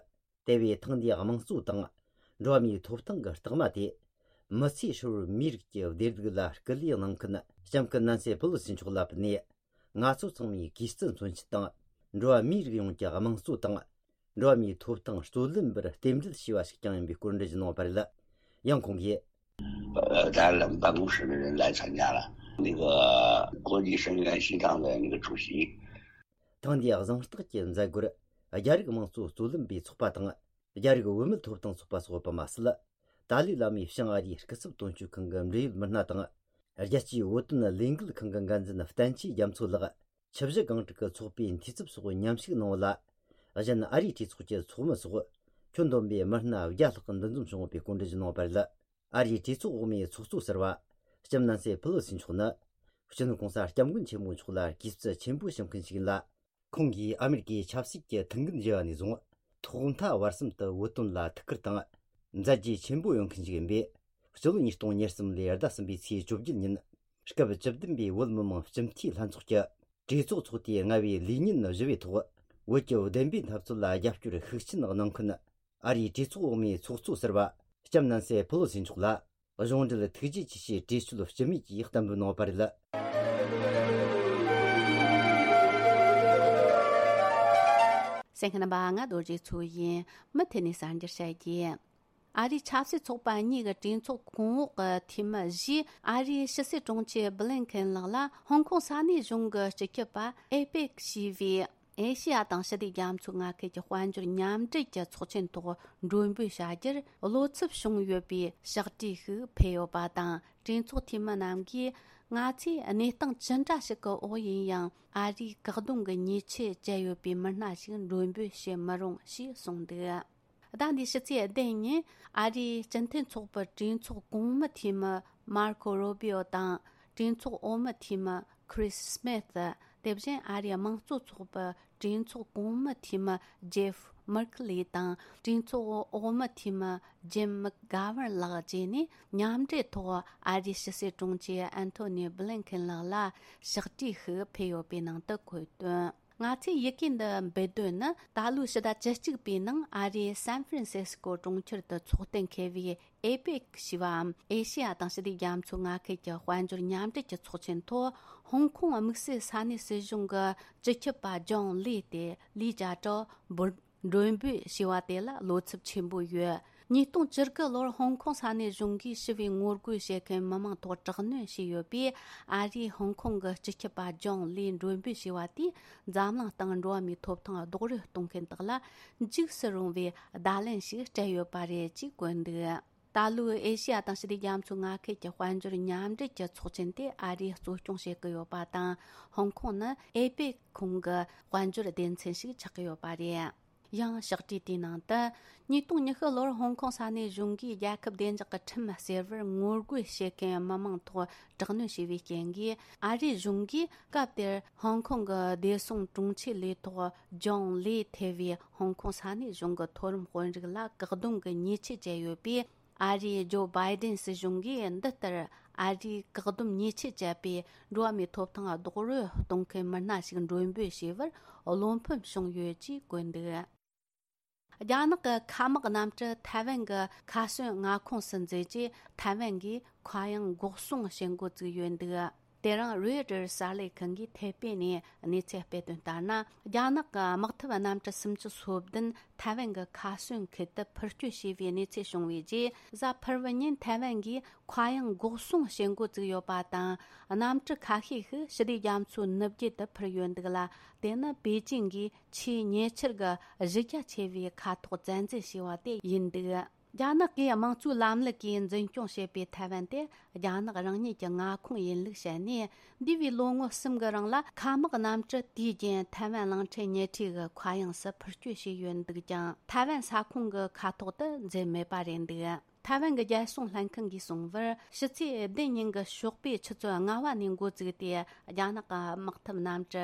དེ་བས་ཐེངས་འདིའི་དམངས་གཙོ་དང་། འགྲོ་བ་མིའི་ཐོབ་ཐང་གི་རྟགས་མ་དེ། མི་ཚེ་ཧྲིལ་བོར་མིའི་རིགས་ཀྱི་བདེ་སྡུག་ལ་སྐུལ་ལེགས་གནང་མཁན་ལྕམ་སྐུ་ནན་སི་ཕེ་ལོ་སི་མཆོག་ལ་ཕུལ་ནས། ང་ཚོ་ཚང་མས་གུས་བརྩི་མཚོན་ཆེད་དང་། འགྲོ་བ་མིའི་རིགས་ཡོངས་ཀྱི་དམངས་གཙོ་དང་། འགྲོ་བ་མིའི་ཐོབ་ཐང་རྩོད་ལེན་པར་རྟེན་འབྲེལ་ཞུས་པ་ཞིག་ཀྱང་ཡིན་པའི་སྐོར་འགྲེལ་བརྗོད་གནང་བ་རེད། ཡང་ཁོང་གིས། 呃，咱冷办公室的人来参加了，那个国际声援西藏的那个主席。 ཐེངས་འདིའི་གཟེངས་རྟགས་ཀྱི་མཛད་སྒོར། རྒྱ་རིགས་དམངས་གཙོ་རྩོད་ལེན་པའི་ཚོགས་པ་དང་། རྒྱ་རིགས་བུད་མེད་ཐོབ་ཐང་ཚོགས་པ་སོགས་ཡོད་པ་མ་ཟད། ཏཱ་ལའི་བླ་མའི་བྱང་ཨ་རིའི་སྐུ་ཚབ་དོན་གཅོད་ཁང་གི་འབྲེལ་ཡོད་མི་སྣ་དང་། རྒྱལ་སྤྱིའི་བོད་དོན་ལས་འགུལ་ཁང་གི་འགན་འཛིན་བསྟན་ཆོས་རྒྱ་མཚོ་ལགས། ཆུ་བཞི་སྒང་དྲུག་གི་ཚོགས་པའི་འཐུས་ཚབ་སོགས་མཉམ་ཞུགས་གནང་བ་ལ། གཞན་ཨ་རིའི་གྲོས་ཚོགས་ཀྱི་ཚོགས་མི་སོགས་ཁྱོན་བསྡོམས་པའི་མི་སྣ་བརྒྱ་ལྷག་འདུ་འཛོམས་བྱུང་ཡོད་པའི་སྐོར་འགྲེལ་བརྗོད་གནང་བ་རེད། ཨ་རིའི་གྲོས་ཚོགས་འོག་མའི་ཚོགས་གཙོ་ཟུར་པ། ལྕམ་ནན་སི་ཕེ་ལོ་སི་མཆོག་ནི། སྤྱི་ནོར་གོང་ས་སྐྱབས་མགོན་ཆེན་པོ་མཆོག་ལ་གུས་བརྩི་ཆེན་པོ་ཞུ་མཁན་ཞིག་ཡིན་ལ། ཁོང་གིས་ཨ་མེ་རི་ཀའི་ཆབ་སྲིད་ཀྱི་ཐུགས་འགན་བཞེས་པ་ནས་བཟུང་། ཐོག་མཐའ་བར་གསུམ་དུ་བོད་དོན་ལ་ཐུགས་ཁུར་དང་། མཛད་རྗེས་ཆེན་པོ་ཡོད་མཁན་ཞིག་ཡིན་པས། སྤྱི་ལོ་ཉིས་སྟོང་ཉེར་གསུམ་ལོའི་ཟླ་གསུམ་པའི་ཚེས་བཅོ་བརྒྱད་ཉིན། སྐབས་བཅུ་བདུན་པའི་བོད་མི་མང་སྤྱི་འཐུས་ལྷན་ཚོགས་ཀྱི་གྲོས་ཚོགས་ཚོགས་དུས་ལྔ་པའི་ལས་ཉིན་བཞི་པའི་ཐོག། བོད་ཀྱི་བདེན་པའི་འཐབ་རྩོད་ལ་རྒྱབ་སྐྱོར་ཤུགས་ཆེན་གནང་མཁན། ཨ་རིའི་གྲོས་ཚོགས་འོག་མའི་ཚོགས་གཙོ་ཟུར་པ། ལྕམ་ནན་སི་ཕེ་ལོ་སི་མཆོག་ལ། གཞུང་འབྲེལ་ཐུགས་རྗེ་ཆེ་ཞེས་གྲོས་ཆོད་སྤྱི་མོས་ཀྱིས་གཏན་འབེབས་གནང་བ་རེད། གསན་མཁན་རྣམ་པ། ང་རྡོ་རྗེ་མཚོ་ཡིན། མུ་མཐུད་ནས་གསར་འགྱུར་བཤད་རྒྱུ། ཨ་རིའི་ཆབ་སྲིད་ཚོགས་པ་གཉིས་ཀྱི་གྲོས་ཚོགས་གོང་འོག་གི་འཐུས་མི་བཞིས། ཨ་རིའི་ཕྱི་སྲིད་དྲུང་ཆེ་བྷི་ལིན་ཁེན་ལགས་ལ་ཧོང་ཀོང་ས་གནས་གཞུང་གི་སྤྱི་ཁྱབ་པ་ཨེ་པེག་ཞེས་པའི་ཨེ་ཤེ་ཡ་དང་ཞི་བདེ་རྒྱ་མཚོའི་མངའ་ཁུལ་གྱི་དཔལ་འབྱོར་མཉམ་འབྲེལ་གྱི་ཚོགས་ཆེན་ཐོག་མགྲོན་འབོད་བྱ་རྒྱུར་བློ་འཚབ་བྱུང་ཡོད་པའི་ཕྱག་བྲིས་ཤིག་ཕུལ་ཡོད་པ་དང་། གྲོས་ཚོགས་འཐུས་མི་རྣམས་ཀྱིས། ང་ཚོས་གནས་སྟངས་ཅི་འདྲ་ཞིག་གི་འོག་ཡིན་ཡང་། ཨ་རིའི་བཀག་སྡོམ་གྱི་ཉེས་ཆད་བཅད་ཡོད་པའི་མི་སྣ་ཞིག་མགྲོན་འབོད་བྱེད་མི་རུང་ཞེས་གསུངས་འདུག་ཟླ་འདིའི་ཕྱི་ཚེས་བདུན་ཉིན། ཨ་རིའི་སྤྱི་མཐུན་ཚོགས་པའི་གྲོས་ཚོགས་གོང་མའི་འཐུས་མི་མར་ཁོ་རུ་བྷི་ཨོ་དང་། གྲོས་ཚོགས་འོག་མའི་འཐུས་མི་ཁྲིས་སྨིད། དེ་བཞིན་ཨ་རིའི་དམངས་གཙོ་ཚོགས་པའི་གྲོས་ཚོགས་གོང་མའི་འཐུས་མི་ཇེབ་མར་ཁེ་ལི་དང་། གྲོས་ཚོགས་འོག་མའི་འཐུས་མི་ཇིམ་མག་གྷ་ཝར་ལགས་བཅས་ནས། མཉམ་འབྲེལ་ཐོག་ཨ་རིའི་ཕྱི་སྲིད་དྲུང་ཆེ་ཨན་ཐོ་ནི་བྷི་ལིན་ཁེན་ལགས་ལ་ཕྱག་བྲིས་ཤིག་ཕུལ་ཡོད་པའི་ནང་དུ་འཁོད་དོན། ང་ཚོས་ཡི་གེ་འདི་འབུལ་དོན་ནི། ད་ལོའི་ཕྱི་ཟླ་བཅུ་གཅིག་པའི་ནང་ཨ་རིའི་སན་ཧྥ་རན་སི་སི་ཀོ་གྲོང་ཁྱེར་དུ་འཚོགས་གཏན་འཁེལ་བའི་ཨེ་པེག་ཞེས་པའམ། ཨེ་ཤེ་ཡ་དང་ཞི་བདེ་རྒྱ་མཚོའི་མངའ་ཁུལ་གྱི་དཔལ་འབྱོར་མཉམ་འབྲེལ་གྱི་ཚོགས་ཆེན་ཐོག་ཧོང་ཀོང་དམིགས་བསལ་ས་གནས་སྲིད་གཞུང་གི་སྤྱི་ཁྱབ་པ་ཇོང་ལི་སྟེ་ལི་ཅཱ་ཀྲོའུ་འབོད། མགྲོན་འབོད་ཞེས་པ་དེ་ལ་བློ་འཚབ་ཆེན་པོ་ཡོད། ཉིས་སྟོང་བཅུ་དགུ་ལོར་ཧོང་ཀོང་ས་གནས་གཞུང་གིས་ཞི་བའི་ངོ་རྒོལ་བྱེད་མཁན་མི་མང་ཐོག་དྲག་གནོན་བྱས་ཡོད་པས། ཨ་རིས་ཧོང་ཀོང་གི་སྤྱི་ཁྱབ་པ་ཇོང་ལིས་མགྲོན་འབོད་བྱས་པ་དེས་འཛམ་གླིང་སྟེང་འགྲོ་བ་མིའི་ཐོབ་ཐང་རྡོག་རོལ་གཏོང་མཁན་དག་ལ་འཇིགས་སུ་རུང་བའི་བརྡ་ལན་ཞིག་སྤྲད་ཡོད་པ་རེད་ཅེས་བཀོད་འདུག་ད་ལོའི་ཨེ་ཤེ་ཡ་དང་ཞི་བདེ་རྒྱ་མཚོའི་མངའ་ཁུལ་གྱི་དཔལ་འབྱོར་མཉམ་འབྲེལ་གྱི་ཚོགས་ཆེན་དེ་ཨ་རིས་གཙོ་སྐྱོང་བྱེད་ཀྱི་ཡོད་པ་དང་། ཧོང་ཀོང་ནི་ཨེ་པེག་ཁོངས་ཀྱི་དཔལ་འབྱོར་སྡེ་ཚན་ཞིག་ཆགས་ཀྱི་ཡོད་པ་རེད། ཡང་ཕྱག་བྲིས་དེའི་ནང་དུ། ཉིས་སྟོང་ཉི་ཤུ་ལོར་ཧོང་ཀོང་ས་གནས་གཞུང་གིས་རྒྱལ་ཁབ་བདེ་འཇགས་ཀྱི་ཁྲིམས་བསྲེ་བར་ངོ་རྒོལ་བྱེད་མཁན་མི་མང་ཐོག་དྲག་གནོན་བྱས་པའི་རྐྱེན་གྱིས། ཨ་རིའི་གཞུང་གིས་སྐབས་དེར་ཧོང་ཀོང་གི་བདེ་སྲུང་དྲུང་ཆེ་ལས་ཐོག་ཇོང་ལི་ཐེ་བའི་ཧོང་ཀོང་ས་གནས་གཞུང་གི་མཐོ་རིམ་དཔོན་རིགས་ལ་བཀག་སྡོམ་གྱི་ཉེས་ཆད་བཅད་ཡོད་པས། ཨ་རིའི་ཇོ་བྷའི་ཏིན་སྲིད་གཞུང་གིས་འདི་ལྟར་ཨ་རིའི་བཀག་སྡོམ་ཉེས་ཆད་བཅད་པའི་འགྲོ་བ་མིའི་ཐོབ་ཐང་རྡོག་རོལ་གཏོང་མཁན་མི་སྣ་ཞིག་མགྲོན་འབོད་བྱས་པར་བློ་ཕམ་བྱུང་ཡོད་ཅེས་བཀོད་འདུག་རྒྱ་ནག་གི་མཁའ་དམག་གནམ་གྲུ་ཐའེ་ཝན་གྱི་མཁའ་ཟོན་མངའ་ཁོངས་སུ་འཛུལ་རྗེས། ཐའེ་ཝན་གྱིས་མཁའ་དབྱིངས་འགོག་སྲུང་བྱེད་འགོ་བཙུགས་ཡོད་འདུག་དེ་རིང་རོའི་ཊར་གསར་ལས་ཁང་གིས་ཐེ་པེ་ནས་གནས་ཚུལ་སྤེལ་དོན་ལྟར་ན། རྒྱ་ནག་གི་དམག་འཐབ་གནམ་གྲུ་སུམ་ཅུ་སོ་བདུན་ཐའེ་ཝན་གྱི་མཁའ་ཟོན་ཁུལ་དུ་འཕུར་སྐྱོད་བྱས་པའི་གནས་ཚུལ་བྱུང་བའི་རྗེས། གཟའ་ཕུར་བུ་ཉིན་ཐའེ་ཝན་གྱིས་མཁའ་དབྱིངས་འགོག་སྲུང་བྱེད་འགོ་བཙུགས་ཡོད་པ་དང་། གནམ་གྲུ་ཁ་ཤས་ཤིག་ཞི་བདེ་རྒྱ་མཚོའི་ནུབ་རྒྱུད་དུ་འཕུར་ཡོད་འདུག་ལ། དེ་ནི་པེ་ཅིང་གིས་ཆེས་ཉེ་ཆར་གྱི་གཞི་རྒྱ་ཆེ་བའི་མཁའ་ཐོག་བཙན་འཛུལ་བྱས་པ་དེ་ཡིན་འདུག་རྒྱ་ནག་གིས་དམངས་གཙོའི་ལམ་ལུགས་ཀྱིས་འཛིན་སྐྱོང་བྱེད་པའི་ཐའེ་ཝན་དེ་རྒྱ་ནག་རང་ཉིད་ཀྱི་མངའ་ཁོངས་ཡིན་ལུགས་བཤད་ནས། འདས་པའི་ལོ་ངོ་གསུམ་གྱི་རིང་ལ་མཁའ་དམག་གནམ་གྲུ་དུས་རྒྱུན་ཐའེ་ཝན་གླིང་ཕྲན་ཉེ་འཁྲིས་ཀྱི་མཁའ་དབྱིངས་སུ་འཕུར་སྐྱོད་བྱས་ཡོད་འདུག་ཀྱང་། ཐའེ་ཝན་ས་ཁོངས་ཀྱི་མཁའ་ཐོག་ཏུ་འཛུལ་མེད་པ་རེད་འདུག་ཐའེ་ཝན་གྱི་རྒྱལ་སྲུང་ལྷན་ཁང་གིས་གསུངས་པར། ཕྱི་ཚེས་བདུན་ཉིན་གྱི་ཞོགས་པའི་ཆུ་ཚོད་ལྔ་པ་ནས་འགོ་བཙུགས་ཏེ། རྒྱ་ནག་གི་དམག་འཐབ་གནམ་གྲུ་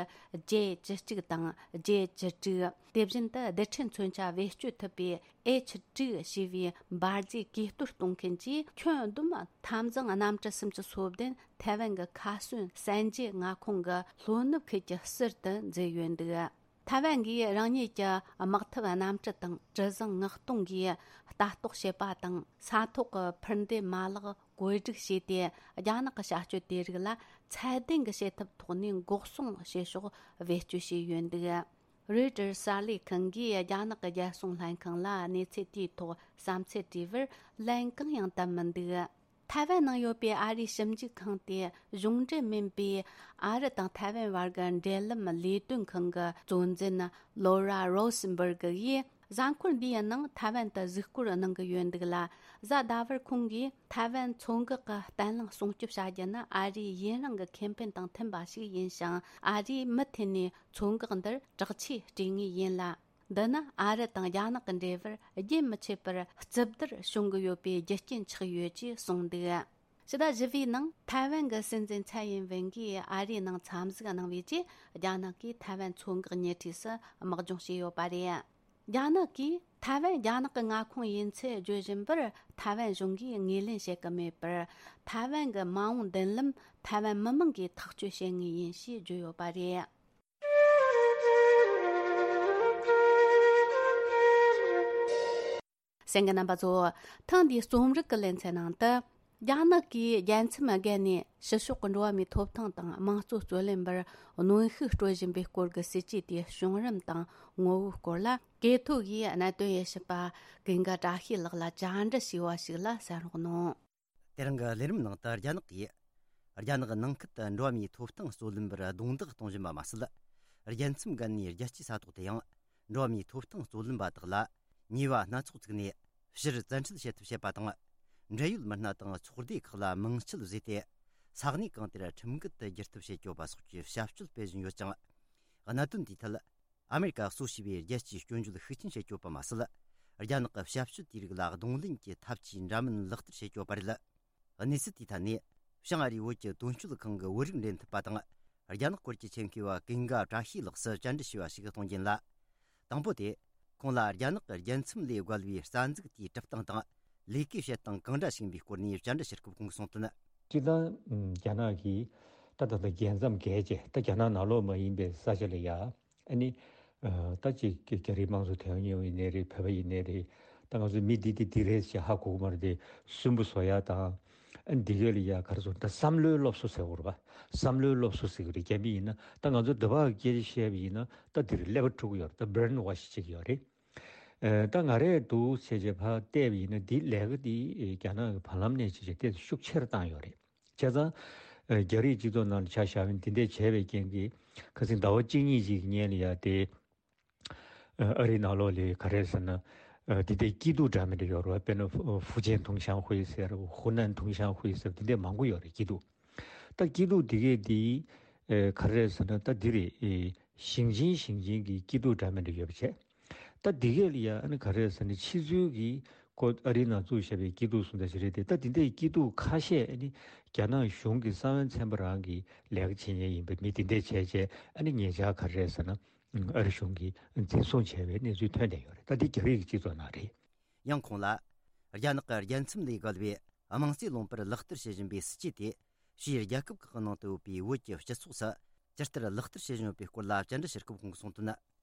ཇེ་བཅུ་གཅིག་དང་ཇེ་བཅུ་དྲུག་དེ་བཞིན་དུ་རྡུལ་ཕྲན་མཚོན་ཆ་བེད་སྤྱོད་ཐུབ་པའི་ཨེཆ་དྲུག་ཞེས་པའི་འབར་རྫས་གས་གཏོར་གཏོང་མཁན་གྱིས། ཁྱོན་བསྡོམས་འཐབ་འཛིང་གནམ་གྲུ་སུམ་ཅུ་སོ་བདུན་ཐའེ་ཝན་གྱི་མཁའ་ཟོན་གསན་རྒྱའི་མངའ་ཁོངས་ཀྱི་ལྷོ་ནུབ་ཁུལ་གྱི་ཟུར་དུ་འཛུལ་ཡོད་འདུག་ཐའེ་ཝན་གྱིས་རང་ཉིད་ཀྱི་དམག་འཐབ་གནམ་གྲུ་དང་གྲུ་གཟིངས་མངགས་གཏོང་གིས་ལྟ་རྟོག་བྱེད་པ་དང་། ས་ཐོག་གི་འཕུར་མདེལ་མ་ལག་བཀོད་སྒྲིག་བྱས་ཏེ། རྒྱ་ནག་གི་བྱ་སྤྱོད་དེ་རིགས་ལ་ཚད་ལྡན་གྱི་བྱེད་ཐབས་ཐོག་ནས་འགོག་སྲུང་བྱེད་ཕྱོགས་བེད་སྤྱོད་བྱས་ཡོད་འདུག Reuters གསར་ལས་ཁང་གིས་རྒྱ་ནག་གི་རྒྱལ་སྲུང་ལྷན་ཁང་ལ་གནས་ཚུལ་དེའི་ཐོག་བསམ་ཚུལ་དྲིས་པར། ལན་གང་ཡང་བཏབ་མི་འདུག་ཐའེ་ཝན་ནང་ཡོད་པའི་ཨ་རིའི་ཞིབ་འཇུག་ཁང་དེ་གཞུང་འབྲེལ་མིན་པའི་ཨ་རི་དང་ཐའེ་ཝན་བར་གྱི་འབྲེལ་ལམ་ལས་དོན་ཁང་གི་གཙོ་འཛིན་ལོ་ར་རོ་སེན་བར་གི་ཡིས། གཟའ་འཁོར་འདིའི་ནང་ཐའེ་ཝན་དུ་གཟིགས་སྐོར་གནང་གི་ཡོད་འདུག་ལ། གཟའ་ཟླ་བར་ཁོང་གིས་ཐའེ་ཝན་མཚོ་འགག་གི་བརྟན་ལྷིང་སྲུང་སྐྱོབ་བྱ་རྒྱུ་ནི་ཨ་རིའི་ཡུན་རིང་གི་ཁེ་ཕན་དང་མཐུན་པ་ཞིག་ཡིན་ཞིང་། ཨ་རིས་མུ་མཐུད་ནས་མཚོ་འགག་འདིར་དྲག་ཆས་སྤྲས་ངེས་ཡིན་ལ། འདི་ནི་ཨ་རི་དང་རྒྱ་ནག་གི་འབྲེལ་བར་རྒྱུན་མི་ཆད་པར་རྩུབ་བསྡུར་བྱུང་གི་ཡོད་པའི་རྒྱུ་རྐྱེན་ཆགས་ཡོད་ཅེས་གསུངས་འདུག་ཕྱི་ཟླ་བཞི་པའི་ནང་ཐའེ་ཝན་གྱི་སྲིད་འཛིན་ཚའེ་ཡིན་ཝེན་གྱིས་ཨ་རིའི་ནང་འཚམས་གཟིགས་གནང་བའི་རྗེས། རྒྱ་ནག་གིས་ཐའེ་ཝན་མཚོ་འགག་ཉེ་འཁྲིས་སུ་དམག་སྦྱོང་བྱས་ཡོད་པ་རེད། རྒྱ་ནག་གིས་ཐའེ་ཝན་རྒྱ་ནག་གི་མངའ་ཁོངས་ཡིན་ཚུལ་བརྗོད་བཞིན་པར། ཐའེ་ཝན་གཞུང་གིས་ངོས་ལེན་བྱེད་ཀྱི་མེད་པར། ཐའེ་ཝན་གྱི་མ་འོངས་མདུན་ལམ་ཐའེ་ཝན་མི་མང་གིས་ཐག་གཅོད་བྱེད་ངེས་ཡིན་ཞེས་བརྗོད་ཡོད་པ་རེད། གསན་མཁན་རྣམ་པ་ཚོ། ཐེངས་འདིའི་རྩོམ་རིག་གི་ལེ་ཚན་ནང་དུ། རྒྱ་ནག་གིས་རྒྱལ་མཚམས་བརྒལ་ནས་ཕྱི་ཕྱོགས་ཀྱི་འགྲོ་བ་མིའི་ཐོབ་ཐང་དང་དམངས་གཙོ་རྩོད་ལེན་པར་གནོན་ཤུགས་སྤྲོད་བཞིན་པའི་སྐོར་གྱི་སྲིད་ཇུས་དེའི་བྱུང་རིམ་དང་ངོ་བོའི་སྐོར་ལ། གོ་ཐོས་ཀྱིས་གནད་དོན་དབྱེ་ཞིབ་པ་ཀུན་དགའ་བཀྲ་ཤིས་ལགས་ལ་བཅར་འདྲི་བྱས་པ་ཞིག་ལ་གསན་རོགས་གནང་། དེ་རིང་གི་ལས་རིམ་ནང་དུ། རྒྱ་ནག་གིས་རྒྱ་ནག་ནང་ཁུལ་དུ་འགྲོ་བ་མིའི་ཐོབ་ཐང་རྩོད་ལེན་པར་རྡུང་རྡེག་གཏོང་བཞིན་པ་མ་ཟད། རྒྱལ་མཚམས་བརྒལ་ནས་རྒྱལ་སྤྱིའི་ས་ཐོག་ཏུ་ཡང་འགྲོ་བ་མིའི་ཐོབ་ཐང་རྩོད་ལེན་པ་དག་ལ་ཉེས་པ་སྣ་ཚོགས་བཙུགས་ནས། ཕྱིར་བཙན་ཁྲིད་བྱེད་ཐབས་བྱེད་པ་དང་། འབྲེལ་ཡོད་མི་སྣ་དང་ཚོགས་སྡེ་ཁག་ལ་མིང་ཆད་བཟོས་ཏེ། ས་གནས་གང་དེར་ཁྲིམས་འགལ་དུ་བསྒྱུར་ཐབས་བྱེད་ཀྱི་ཡོད་པ་སོགས་ཀྱི་བྱ་སྤྱོད་སྤེལ་བཞིན་ཡོད་ཅིང་། གནད་དོན་དེའི་ཐད། ཨ་མེ་རི་ཀ་གཙོ་བྱས་པའི་རྒྱལ་སྤྱིའི་སྐྱོན་བརྗོད་ཤུགས་ཆེན་བྱེད་ཀྱི་ཡོད་པ་མ་ཟད། རྒྱ་ནག་གི་བྱ་སྤྱོད་དེའི་རིགས་ལ་གདོང་ལེན་གྱི་ཐབས་ཇུས་འདྲ་མིན་ལག་བསྟར་བྱེད་ཀྱི་ཡོད་པ་རེད། གནས་ཚུལ་དེའི་ཐད་ནས། བྱང་ཨ་རིའི་བོད་ཀྱི་དོན་གཅོད་ཁང་གི་བོད་རིགས་འབྲེལ་མཐུད་པ་དང་། རྒྱ་ནག་སྐོར་གྱི་ཆེད་མཁས་པ་ཀུན་དགའ་བཀྲ་ཤིས་ལགས་སུ་བཅར་འདྲི་ཞུས་པ་ཞིག་གཏོང་རྒྱུ་ཡིན་ལ། དང་པོ་དེ། ཁོང་ལ་རྒྱ་ནག་གི་རྒྱལ་མཚམས་ལས་བརྒལ་བའི་རྩ་འཛུགས་དེའི་གྲུབ་སྟངས་དང་། ལས་ཀའི་བྱེད་སྟངས་གང་འདྲ་ཞིག་ཡིན་པའི་སྐོར་ནས་བཅར་འདྲི་ཞུ་སྐབས་ཁོང་གིས་གསུངས་དོན། སྤྱིར་བཏང་། རྒྱ་ནག་གིས་ད་ད་ལྟ་རྒྱལ་མཚམས་བརྒལ་བྱས། ད་རྒྱ་ནག་ནང་ལོགས་མ་ཡིན་པའི་ས་ཆ་ལ་ཡ། ཨ་ནི། ཨ། ད་ཅིག་རྒྱ་རིགས་དམངས་གཙོ་དོན་གཉེར་བ་ཡིན་ནའི་རེད། བོད་པ་ཡིན་ནའི་རེད། ད་ང་ཚོ་མི་འདི་འདི་འདི་རེད་ཅེས་ཧ་གོ་གི་མ་རེད་དེ། སུན་པོ་བཟོ་ཡ་དང་། ཨ་ནི་འདི་གས་ལ་ཡ་ག་རེ་ཟེར། ད་བསམ་བློའི་སློབ་གསོ་ཟེར་དགོས་རེད་པ། བསམ་བློའི་སློབ་གསོ་ཟེར་གི་རེད། རྒྱ་མི་ཡིན་ན། ད་ང་ཚོ་འདི་བ་སྐད་ཆ་བཤད་པ་ཡིན་ན། ད་འདིར་ཀླད་པ་འཁྲུག་གི་ཡོད་རེད། ད་brainwash བྱེད་ཀྱི་ཡོད་རེད། ཨ། ད་ང་རས་འདུག་བྱས་བྱས་ཕར་བལྟས་པ་ཡིན་ན། འདི་ལས་ཀ་འདི་རྒྱ་ནག་གི་བར་ལམ་ནས་བྱས་བྱས་ཏོག་ཙམ་ཤུགས་ཆེ་རུ་བཏང་ཡོད་རེད། བྱས་ཙང་། ཨ། རྒྱ་རིགས་སྤྱི་ཚོགས་ནང་ལ་ཆ་བཞག་པ་ཡིན་ན། འདི་འདྲས་བྱས་པའི་རྐྱེན་གྱིས། ཁ་སང་ཟླ་བ་གཅིག་གཉིས་ཅིག་གི་སྔོན་ལ་ཡ་དེ། ཨ། ཨ་རིའི་ནང་ལོགས་ལ་ག་རེ་ཟེར་ན། ཨ། འདི་འདྲའི་སྐྱིད་སྡུག་འདྲ་མི་འདྲ་ཡོད་རེད་པ། དཔེར་ན་ཧྥུ་ཧྥུ་ཅན་ཐུང་ཤང་ཧུའེ་ཟེར། ཧུ་ནན་ཐུང་ཤང་ཧུའེ་ཟེར། འདི་འདྲས་མང་པོ་ཡོད་རེད། སྐྱིད་སྡུག་ད་སྐྱིད་སྡུག་འདི་གས་འདི། ཨ། ག་རེ་ཟེར་ན། ད་འདི་རེད། ཨེ། ཞིང་ཆེན་ཞིང་ཆེན་གྱི་སྐྱིད་སྡུག་འདྲ་མི་འདྲ་ཡོད་པ་བྱས། ད་འདི་གས་ལ་ཡ། ཨ་ནི་ག་རེ་ཟེར་ན། ཕྱི་ཚུལ་གྱི་ཁོ་ཨ་རིའི་ནང་བཙུགས་བཞག་པའི་སྐྱིད་སྡུག་སུ་འདྲ་ཞིག་རེད་དེ། ད་འདི་འདྲའི་སྐྱིད་སྡུག་ཁ་ཤས། ཨ་ནི་རྒྱ་ནག་གཞུང་གི་གསང་བའི་ཚན་པ་རང་གིས་ལས་ཀ་བྱེད་མཁན་ཡིན་པའི་མི་འདི་འདྲས་བྱས་བྱས། ཨ་ནི་ཉེ་ཆར་ག་རེ་ཟེར་ན། ཨ་རི་གཞུང་གིས་འཛིན་བཟུང་བྱས་པའི་གནས་ཚུལ་ཐོན་བསྡད་ཡོད་རེད། ད་འདི་རྒྱ་རིགས་ཀྱི་སྤྱི་ཚོགས་ནང་རེད། ཡང་ཁོང་ལ། རྒྱ་ནག་གི་རྒྱལ་མཚམས་ལས་བརྒལ་བའི་དམངས་གཙོའི་ལུང་པར་ལག་བསྟར་བྱེད་བཞིན་པའི་སྲིད་ཇུས་དེ། ཕྱིའི་རྒྱལ་ཁབ་ཁག་གི་ནང་དུ་ཡོད་པའི་བོད་ཀྱི་སྤྱི་ཚོགས་སུ་ཇི་ལྟར་ལག་བསྟར་བྱེད་བཞིན་ཡོད་པའི་སྐོར་ལ་བཅར་འདྲི་ཞུ་སྐབས་ཁོང་གིས་གསུངས་དོན།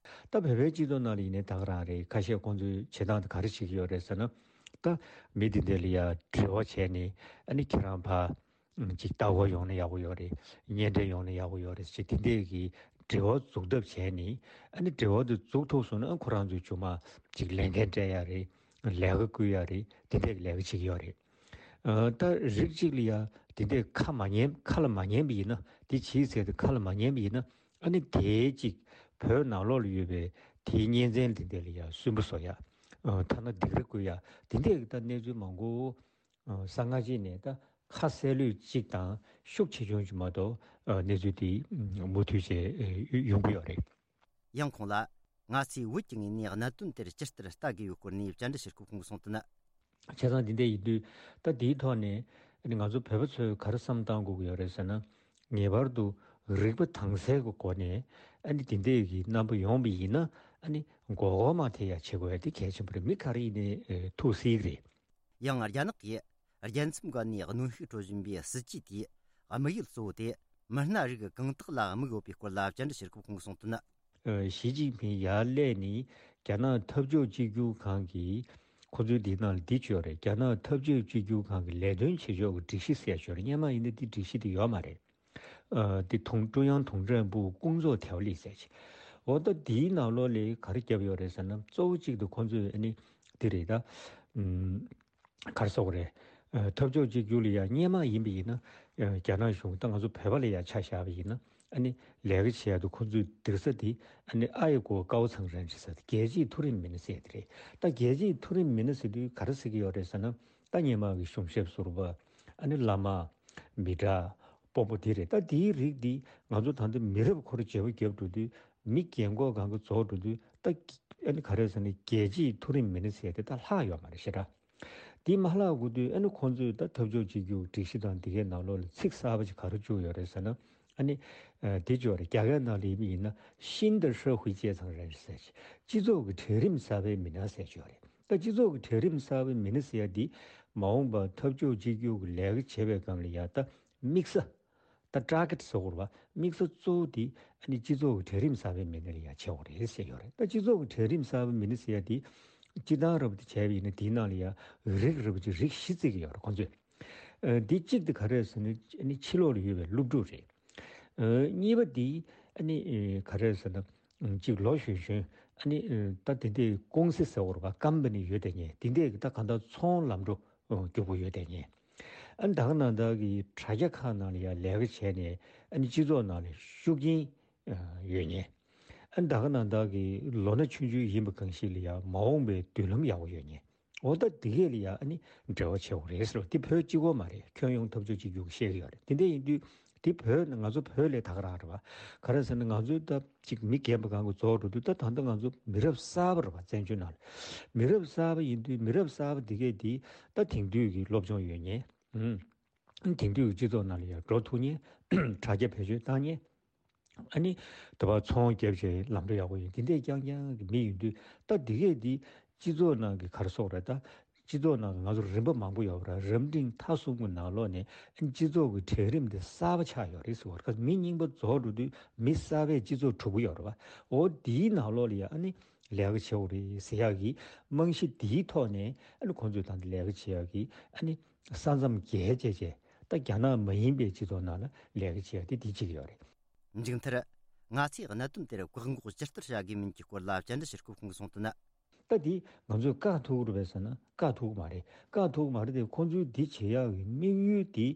ད་བོད་པའི་སྤྱི་ཚོགས་ནང་ལ་ཡིན་ནའི་ད་ག་རང་རེད། ཁ་ཤས་ཁོང་ཚོས་བྱེད་སྟངས་དེ་ག་རེ་བྱེད་ཀྱི་ཡོད་རེད་ཟེར་ན། ད་མི་དེ་འདྲ་ལ་ཡ་འབྲེལ་བ་བྱས་ནས། ཨ་ནི་ཁྱེད་རང་ཕར་ཅིག་ལྟ་སྐོར་ཡོང་ན་ཡག་པོ་ཡོད་རེད། གཉེན་འཕྲད་ཡོང་ན་ཡག་པོ་ཡོད་རེད་ཅེས་དེ་འདྲས་ཀྱི་འབྲེལ་བ་འཛུགས་ཐབས་བྱས་ནས། ཨ་ནི་འབྲེལ་བ་དེ་འཛུགས་ཐུབ་སོང་ན། ཨ། ཁོ་རང་ཚོའི་རྒྱུ་མ་ཅིག་ལས་འགན་སྤྲད་ཡ་རེད། ལས་ཀ་བསྐུལ་ཡ་རེད། དེ་འདྲས་ཀྱི་ལས་ཀ་བྱེད་ཀྱི་ཡོད་རེད། ཨ། ད་རིགས་གཅིག་ལ་ཡ་དེ་འདྲས་ཁ་མ་ཉན། ཁ་ལ་མ་ཉན་པ་ཡིན་ན། དེ་བྱེད་ཟེར་ཏེ་ཁ་ལ་མ་ཉན་པ་ཡིན་ན། ཨ་ནི་དེའི་ཅིག་བོད་ནང་ལོགས་ལ་ཡོད་པའི་དེའི་གཉེན་ཚན་དེ་འདྲས་ལ་ཡ་སུན་པོ་བཟོ་ཡ། ཨ། ཐ་ན་སྡིགས་ར་བསྐུལ་ཡ། དེ་འདྲས་ཀྱི་ད་གནས་ཚུལ་མང་པོ། ཨ། གསང་སྔགས་ཅིག་ནས་ད་ཁ་གསལ་ལོས་གཅིག་དང་ཤུགས་ཆེ་ཆུང་ཅིག་མ་གཏོགས། ཨ། གནས་ཚུལ་དེ་མུ་མཐུད་བྱས་ཡོང་གི་ཡོད་རེད། ཡང་ཁོང་ལ། ང་ཚོས་བོད་ཀྱི་ངོས་ནས་གནད་དོན་དེར་ཇི་ལྟར་ལྟ་དགོས་པའི་སྐོར་ནས་བཅར་འདྲི་ཞུ་སྐབས་ཁོང་གིས་གསུངས་དོན། བྱས་ཙང་འདི་འདྲ་ཡིན་དུས་ད་འདིའི་ཐོག་ནས་ཨ་ནི་ང་ཚོ་བོད་པ་ཚོས་ག་རེ་བསམ་བཏང་དགོས་ཀྱི་ཡོད་རེད་ཟེར་ན། ངེས་པར་དུ་རིག་པ་དྭངས་གསལ་གྱི་སྒོ་ནས་ཨ་ནི་འདི་འདྲའི་གི་རྣམ་པ་ཡོང་བ་ཡིན་ན་ཨ་ནི་མགོ་སྐོར་མ་ཐེབས་ཡ་བྱེད་དགོས་ཡ་དེ་གལ་ཆེན་པོ་རེད། མི་ག་རེ་ཡིན་ནའི་ཨེ་ཐུགས་གཟིགས་རེད། ཡང་རྒྱ་ནག་གིས་རྒྱལ་མཚམས་སྒང་ནས་གནོན་ཤུགས་སྤྲོད་བཞིན་པའི་སྲིད་ཇུས་དེའི་དམིགས་ཡུལ་གཙོ་བོ་དེ་མི་སྣ་རིགས་གང་དག་ལ་དམིགས་ཡོད་པའི་སྐོར་ལ་བཅར་འདྲི་བྱེད་སྐབས་ཁོང་གིས་གསུངས་དོན། ཨ། ཞི་ཅིན་ཕིང་ཡར་སླེབས་ནས་རྒྱ་ནག་འཐབ་ཕྱོགས་གཅིག་གྱུར་ཁང་གིས་ཁོ་ཚོའི་འདི་ནང་ལ་འདི་བྱོས་རེད། རྒྱ་ནག་འཐབ་ཕྱོགས་གཅིག་གྱུར་ཁང་གི་ལས་དོན་བྱེད་ཕྱོགས་ཀྱི་སྒྲིག་གཞི་ཟེར་བྱོས་རེད། སྔོན་མ་ཡིན་ན་འདི་སྒྲིག་གཞི་དེ་ཡོད་མ་རེད། ཨ། འདི་ཀྲུང་ཀྲུང་དབྱང་ཏུང་ཀྲེང་པུའུ་ཀུང་ཙོའུ་ཐའོ་ལི་ཟེར་བྱས། འོ་ད་འདིའི་ནང་ལོགས་ལ་ག་རེ་བརྒྱབ་ཡོད་རེད་ཟེར་ན། གཙོ་བོ་གཅིག་ཏུ་ཁོ་ཚོས་ཨ་ནི་འདི་རེད་ད། ཨུམ། ག་རེ་ཟེར་དགོས་རེད། ཨ། འཐབ་ཕྱོགས་གཅིག་གྱུར་ལ་ཡ་སྔོན་མ་ཡིན་པ་ཡིན་ན། ཨ། རྒྱ་ནག་གཞུང་ད་ང་ཚོ་བོད་པ་ལ་ཡ་ཆ་བཞག་པ་ཡིན་ན། ཨ་ནི་ལས་ཀ་བྱེད་ཡ་དུ་ཁོ་ཚོའི་སྡོད་ས་དེ་ཨ་ནི་ཨ་ཡི་གོ་ཀའོ་ཚང་རན་ཅི་ཟེར་ཏེ་རྒྱལ་སྤྱིའི་མཐོ་རིམ་མི་སྣ་ཟེར་དེ་རེད། ད་རྒྱལ་སྤྱིའི་མཐོ་རིམ་མི་སྣ་ཟེར་དུས་ག་རེ་ཟེར་གྱི་ཡོད་རེད་ཟེར་ན། ད་སྔོན་མ་གི་གཞུང་ཞབས་ཟུར་པ། ཨ་ནི་བླ་མ། མི་དྲག་པོ་པོ་དེ་རེད། ད་དེའི་རིགས་འདི་ང་ཚོ་ད་ལྟ་མི་རབས་འཁོར་བརྗེ་པོ་བརྒྱབ་འགྲོ་དུས། མི་རྒན་གོག་གང་ག་རྫོགས་འགྲོ་དུས་ད་ཨ་ནི་ག་རེ་ཟེར་ན་རྒྱལ་སྤྱིའི་མཐོ་རིམ་མི་སྣ་ཟེར་དེ་ད་ལྷག་ཡོད་མ་རེད་ཤི་ར། དེ་མ་ལྷག་དགོས་དུས་ཨ་ནི་ཁོང་ཚོས་ད་འཐབ་ཕྱོགས་གཅིག་གྱུར་སྒྲིག་གཞི་དང་དེ་གའི་ནང་ལོགས་ལ་ཚིག་གསར་པ་ཅིག་ག་རེ་བཅུག་ཡོད་རེད་ཟེར་ན། ཨ་ནི་ཨ་དེ་བཅུག་རེད། རྒྱ་སྐད་ནང་ལ་ཡིན་ན་ཤིན་ཏུ་ཧྲི་ཧུའི་ཅེ་ཚང་རེད་ཟེར། སྤྱི་ཚོགས་ཀྱི་གྲལ་རིམ་གསར་པའི་མི་སྣ་ཟེར་བཅུག་རེད། ད་སྤྱི་ཚོགས་ཀྱི་གྲལ་རིམ་གསར་པའི་མི་སྣ་ཟེར་ཡ་འདི་མ་འོངས་པ་འཐབ་ཕྱོགས་གཅིག་གྱུར་གྱི་ལས་ཀ་བྱེད་པའི་སྒང་ལ་ཡ་ད་དམིགས་ས། ད་ཊར་གེ་ཊི་ཟེར་དགོས་རེད་པ། དམིགས་ས་གཙོ་བོ་དེ་ཨ་ནི་སྤྱི་ཚོགས་ཀྱི་གྲལ་རིམ་གསར་པའི་མི་སྣ་ལ་ཡ་བྱེད་དགོས་རེད་ཟེར་ཡོད་རེད། ད་སྤྱི་ཚོགས་ཀྱི་གྲལ་རིམ་གསར་པའི་མི་སྣ་ཟེར་ཡ་དེ་སྤྱིར་བཏང་རབ་ཏུ་བྱས་པ་ཡིན་ན་དེའི་ནང་ལ་ཡ་རིགས་རིགས་པ་ཅིག་རིགས་བཞི་བརྩི་གི་ཡོད་རེད་ཁོང་ཚོས། ཨ། འདི་གཅིག་དེ་ག་རེ་ཟེར་ན་ཨ་ནི་ཕྱི་ལོགས་ལ་ཡོད་པའི་སློབ་ཕྲུག་རེད། ཨ། གཉིས་པ་དེ་ཨ་ནི་ཨ་ག་རེ་ཟེར་ན་ཨ་གཅིག་ལོ་གཞོན་གཞོན་ཨ་ནི་ཨ་ད་དེ་འདྲའི་ཀུང་སི་ཟེར་དགོས་རེད་པ། ཀམ་པ་ནི་ཡོད་དེ་ཉེ་དེ་འདྲའི་ད་གང་ལྟར་ཚོང་ལམ་འགྲོ་རྒྱུག་པོ་ཡོད་དེ་ཉེ། ཨ་ནི་ད་ག་ནང་ད་གི་དྲ་རྒྱ་ཁག་ནང་ལ་ཡ་ལས་ཀ་བྱས་ནས་ཨ་ནི་སྤྱི་ཚོགས་ནང་ལ་ཤུགས་རྐྱེན་ཡོད་ཉེ། ཨ་ནི་ད་ག་ནང་ད་གི་ལོ་ན་ཆུང་ཆུང་ཡིན་པ་གང་ཞིག་ལ་ཡ་མ་འོངས་པའི་མདུན་ལམ་ཡག་པོ་ཡོད་ཉེ། འོ་ད་དེ་གས་ལ་ཡ་ཨ་ནི་འབྲེལ་བ་བྱེད་དགོས་རེད་ཟེར་བ་དེ་བོད་གཅིག་པོ་མ་རེད། ཁྱོན་ཡོངས་འཐབ་ཕྱོགས་གཅིག་གྱུར་གྱི་བཤད་ཀྱི་ཡོད་རེད། དེ་འདྲ་ཡིན་དུས་དེ་བོད་ང་ཚོ་བོད་ལས་ད་ག་རང་རེད་པ། ག་རེ་ཟེར་ན་ང་ཚོའི་ད་ཅིག་མི་རྒན་པ་གང་གི་རྫོགས་འགྲོ་དུས་ད་ད་ལྟ་ང་ཚོ་མི་རབས་གསར་པ་རེད་པ། བཙན་བྱོལ་ནང་ལ་མི་རབས་གསར་པ་ཡིན་དུས་མི་རབས་གསར་པ་དེ་གས་དེ་ད་དེང་དུས་ཀྱི་སློབ་སྦྱོང་ཡོད་ཉེ། ཨུམ། དེང་དུས་ཀྱི་སྤྱི་ཚོགས་ནང་ལ་ཡང་འགྲོ་ཐུབ་ཉེ། དྲ་རྒྱ་བེད་སྤྱོད་བཏང་ཉེ། ཨ་ནི་དེ་བ་ཚོང་རྒྱབ་བྱས་ལམ་འགྲོ་ཡག་པོ་ཡིན། དེ་འདྲས་རྐྱང་རྐྱང་གི་མི་ཡིན་དུས་ད་དེ་གས་དེ་སྤྱི་ཚོགས་ནང་གི་ག་རེ་ཟེར་དགོས་རེད། ད་སྤྱི་ཚོགས་ནང་གི་ང་ཚོ་རིམ་པ་མང་པོ་ཡོད་པ་ར། རབ་འབྲིང་ཐ་གསུམ་གྱི་ནང་ལོགས་ནས་ཨ་ནི་སྤྱི་ཚོགས་ཀྱི་གྲལ་རིམ་དེ་གསར་པ་ཆགས་ཡོད་རེད་ཟེར་བ་རེད། མི་རྙིང་པ་རྫོགས་འགྲོ་དུས་མི་གསར་པའི་སྤྱི་ཚོགས་གྲུབ་ཀྱི་ཡོད་རེད་པ། འོ་དེའི་ནང་ལོགས་ལ་ཡ་ཨ་ནི་ལས་ཀ་བྱེད་དགོས་རེད་ཟེར་ཡག་གི་རྨང་གཞི་དེའི་ཐོག་ནས་ཨ་ནི་ཁོང་ཚོས་ད་ལྟ་ལས་ཀ་བྱེད་ཡག་གི་ཨ་ནི། ས་མཚམས་བརྒལ་བྱས་བྱས་ད་རྒྱ་ནག་མ་ཡིན་པའི་སྤྱི་ཚོགས་ནང་ལ་ལས་ཀ་བྱེད་ཡ་དེ་དེ་གཅིག་ཡོད་རེད། མཇུག་མཐར། ང་ཚོས་གནད་དོན་དེར་བཀག་འགོག་ཇི་ལྟར་བྱ་དགོས་མིན་གྱི་སྐོར་ལ་བཅར་འདྲི་བྱེད་སྐབས་ཁོང་གིས་གསུངས་དོན། ད་དེ་ང་ཚོས་བཀག་ཐུབ་ཀྱི་རེད་པས་ཟེར་ན་བཀག་ཐུབ་ཀྱི་མ་རེད། བཀག་ཐུབ་ཀྱི་མ་རེད་དེ་ཁོང་ཚོའི་འདི་བྱེད་ཡག་གི་དམིགས་ཡུལ་དེ་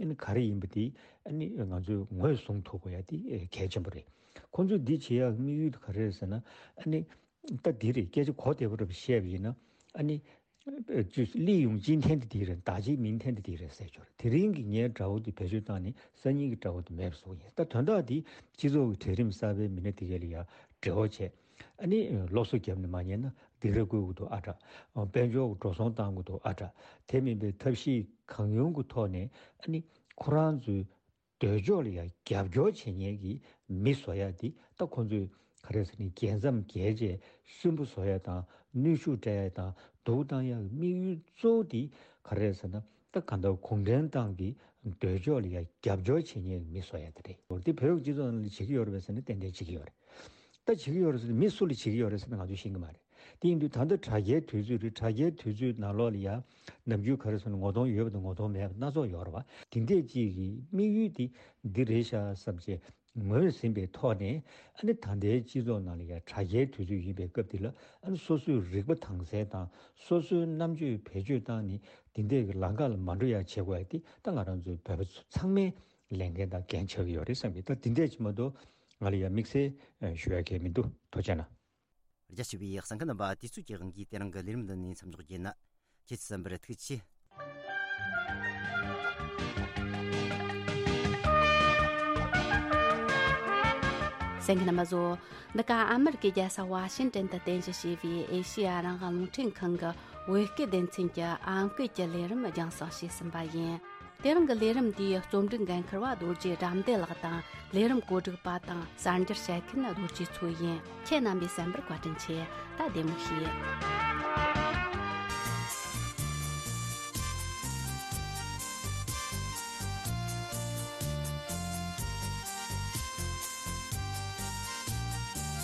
ཨ་ནི་ག་རེ་ཡིན་པ་དེ་ཨ་ནི་ང་ཚོས་ངོས་བཟུང་ཐུབ་དགོས་ཡ་དེ་གལ་ཆེན་པོ་རེད། ཁོང་ཚོའི་འདི་བྱེད་ཡག་གི་དམིགས་ཡུལ་དེ་ག་རེ་རེད་ཟེར་ན་ཨ་ནི། ད་འདི་རེད། སྐད་ཆ་གོ་བདེ་པོ་རེ་བཤད་པ་ཡིན་ན་ཨ་ནི། ཅུས་ལི་ཡུང་ཅིན་ཐན་དེ་དེ་རེད། ད་ཅི་མིན་ཐན་དེ་དེ་རེད་ཟེར་ཆོག་རེད། དེ་རིང་གི་ངའི་དགྲ་བོ་དེ་བེད་སྤྱོད་བཏང་ནས་སང་ཉིན་གྱི་དགྲ་བོ་དེ་མེད་པ་བཟོ་ཡིན། ད་དོན་དག་དེ་སྤྱི་ཚོགས་ཀྱི་གྲལ་རིམ་གསར་པའི་མི་སྣ་དེ་གས་ལ་ཡ་འབྲེལ་བ་བྱས། ཨ་ནི་སློབ་གསོ་བརྒྱབ་ནས་མ་ཉན་ན་སྡིགས་ར་བསྐུལ་གྱི་འདུག་ཨ་དྲ། དཔལ་འབྱོར་གྱི་འགྲོ་སོང་བཏང་གི་འདུག་ཨ་དྲ། དེ་མིན་པའི་ཐབས་ཤེས་གང་ཡོང་གི་ཐོག་ནས་ཨ་ནི་ཁོ་རང་ཚོའི་འདོད་ཕྱོགས་ལ་ཡང་རྒྱབ་སྐྱོར་བྱེད་མཁན་གྱི་མི་བཟོ་ཡ་དེ་ད་ཁོང་ཚོས་ག་རེ་ཟེར་ནས་རྒྱལ་མཚམས་བརྒལ་རྗེས་སུན་པོ་བཟོ་ཡ་དང་གནོན་ཤུགས་སྤྲད་ཡ་དང་སྡུག་བཏང་ཡ་གི་དམིགས་ཡུལ་གཙོ་བོ་དེ་ག་རེ་ཟེར་ན་ད་གང་ལྟར་གུང་ཁྲན་ཏང་གི་འདོད་ཕྱོགས་ལ་ཡང་རྒྱབ་སྐྱོར་བྱེད་མཁན་གྱི་མི་བཟོ་ཡ་དེ་རེད། འོ་དེ་བོད་ཀྱི་སྤྱི་ཚོགས་ནང་ལ་བྱེད་ཀྱི་ཡོད་རེད་པས་ཟེར་ན་ཏན་ཏན་བྱེད་ཀྱི་ཡོད་རེད། ད་བྱེད་ཀྱི་ཡོད་རེད་ཟེར་ན་མི་སུ་ལ་བྱེད་ཀྱི་ཡོད་རེད་ཟེར་ན་ང་ཚོས་ཤེས་ཀྱི་མ་རེད། དེ་ཡིན་དུས་ད་ལྟ་དྲ་རྒྱའི་དུས་ཚོད་རེད། དྲ་རྒྱའི་དུས་ཚོད་ནང་ལོགས་ལ་ཡང་ནམ་རྒྱུན་ག་རེ་ཟེར་ན་ངོ་གདོང་ཡོད་པ་དང་ངོ་གདོང་མེད་པ་སྣ་ཚོགས་ཡོད་རེད་བ། དེ་འདྲས་ཅིག་གི་དམིགས་ཡུལ་དེ་འདི་རེད་ཤག་བསམ་བྱས་ངོས་ཟིན་པའི་ཐོག་ནས་ཨ་ནི་ད་ལྟའི་སྤྱི་ཚོགས་ནང་ལ་ཡང་དྲ་རྒྱའི་དུས་ཚོད་ཡིན་པའི་སྐབས་འདི་ལ་ཨ་ནི་སོ་སོའི་རིག་པ་དྭངས་གསལ་དང་སོ་སོའི་རྣམ་དཔྱོད་བེད་སྤྱོད་བཏང་ནས་དེ་འདྲས་ཀྱི་ལམ་ཁ་ལ་མ་འགྲོ་ཡ་བྱེད་དགོས་ཡ་དེ་ད་ང་རང་ཚོའི་བོད་པ་ཚོ་ཚང་མའི་ལས་འགན་དང་འགན་ཆགས་ཀྱི་ཡོད་རེད་བསམ་གྱི། ད་དེ་འདྲས་ཅིག་མ་གཏོགས་ང་ལ་ཡང་དམིགས་བསལ་ཞུ་ཡ་གང་ཡང་མི་འདུག་ཐུགས་རྗེ་གནང་། རྒྱ་ཆེ་བའི་གསན་མཁན་རྣམ་པ། དུས་ཚོད་ཀྱི་དབང་གིས་དེ་རིང་གི་ལས་རིམ་འདི་ནས་མཚམས་འཇོག་རྒྱུ་ཡིན། ཁྱེད་ཚོ་གསན་པར་ཐུགས་རྗེ་ཆེ། གསན་མཁན་རྣམ་པ་ཚོ། འདི་ག་ཨ་མེ་རི་ཀའི་རྒྱལ་ས་ཝ་ཤིང་ཏན་དུ་རྟེན་གཞི་བྱས་པའི་ཨེ་ཤེ་ཡ་རང་དབང་རླུང་འཕྲིན་ཁང་གི་ བོད་སྐད་སྡེ་ཚན་གྱི་ཨམ་སྐད་ཀྱི་ལས་རིམ་རྒྱང་སྲིང་བྱས་ཟིན་པ་ཡིན། དེ་རིང་གི་ལས་རིམ་འདིའི་རྩོམ་སྒྲིག་འགན་འཁུར་བ་རྡོ་རྗེ་དགྲ་འདུལ་ལགས་དང་། ལས་རིམ་གོ་སྒྲིག་པ་དང་གསར་འགྱུར་བཤད་མཁན་རྡོ་རྗེ་མཚོ་ཡིན། ཁྱེད་རྣམ་པས་གསན་པར་བཀའ་དྲིན་ཆེ། ད་བདེ་མོ་བྱོས།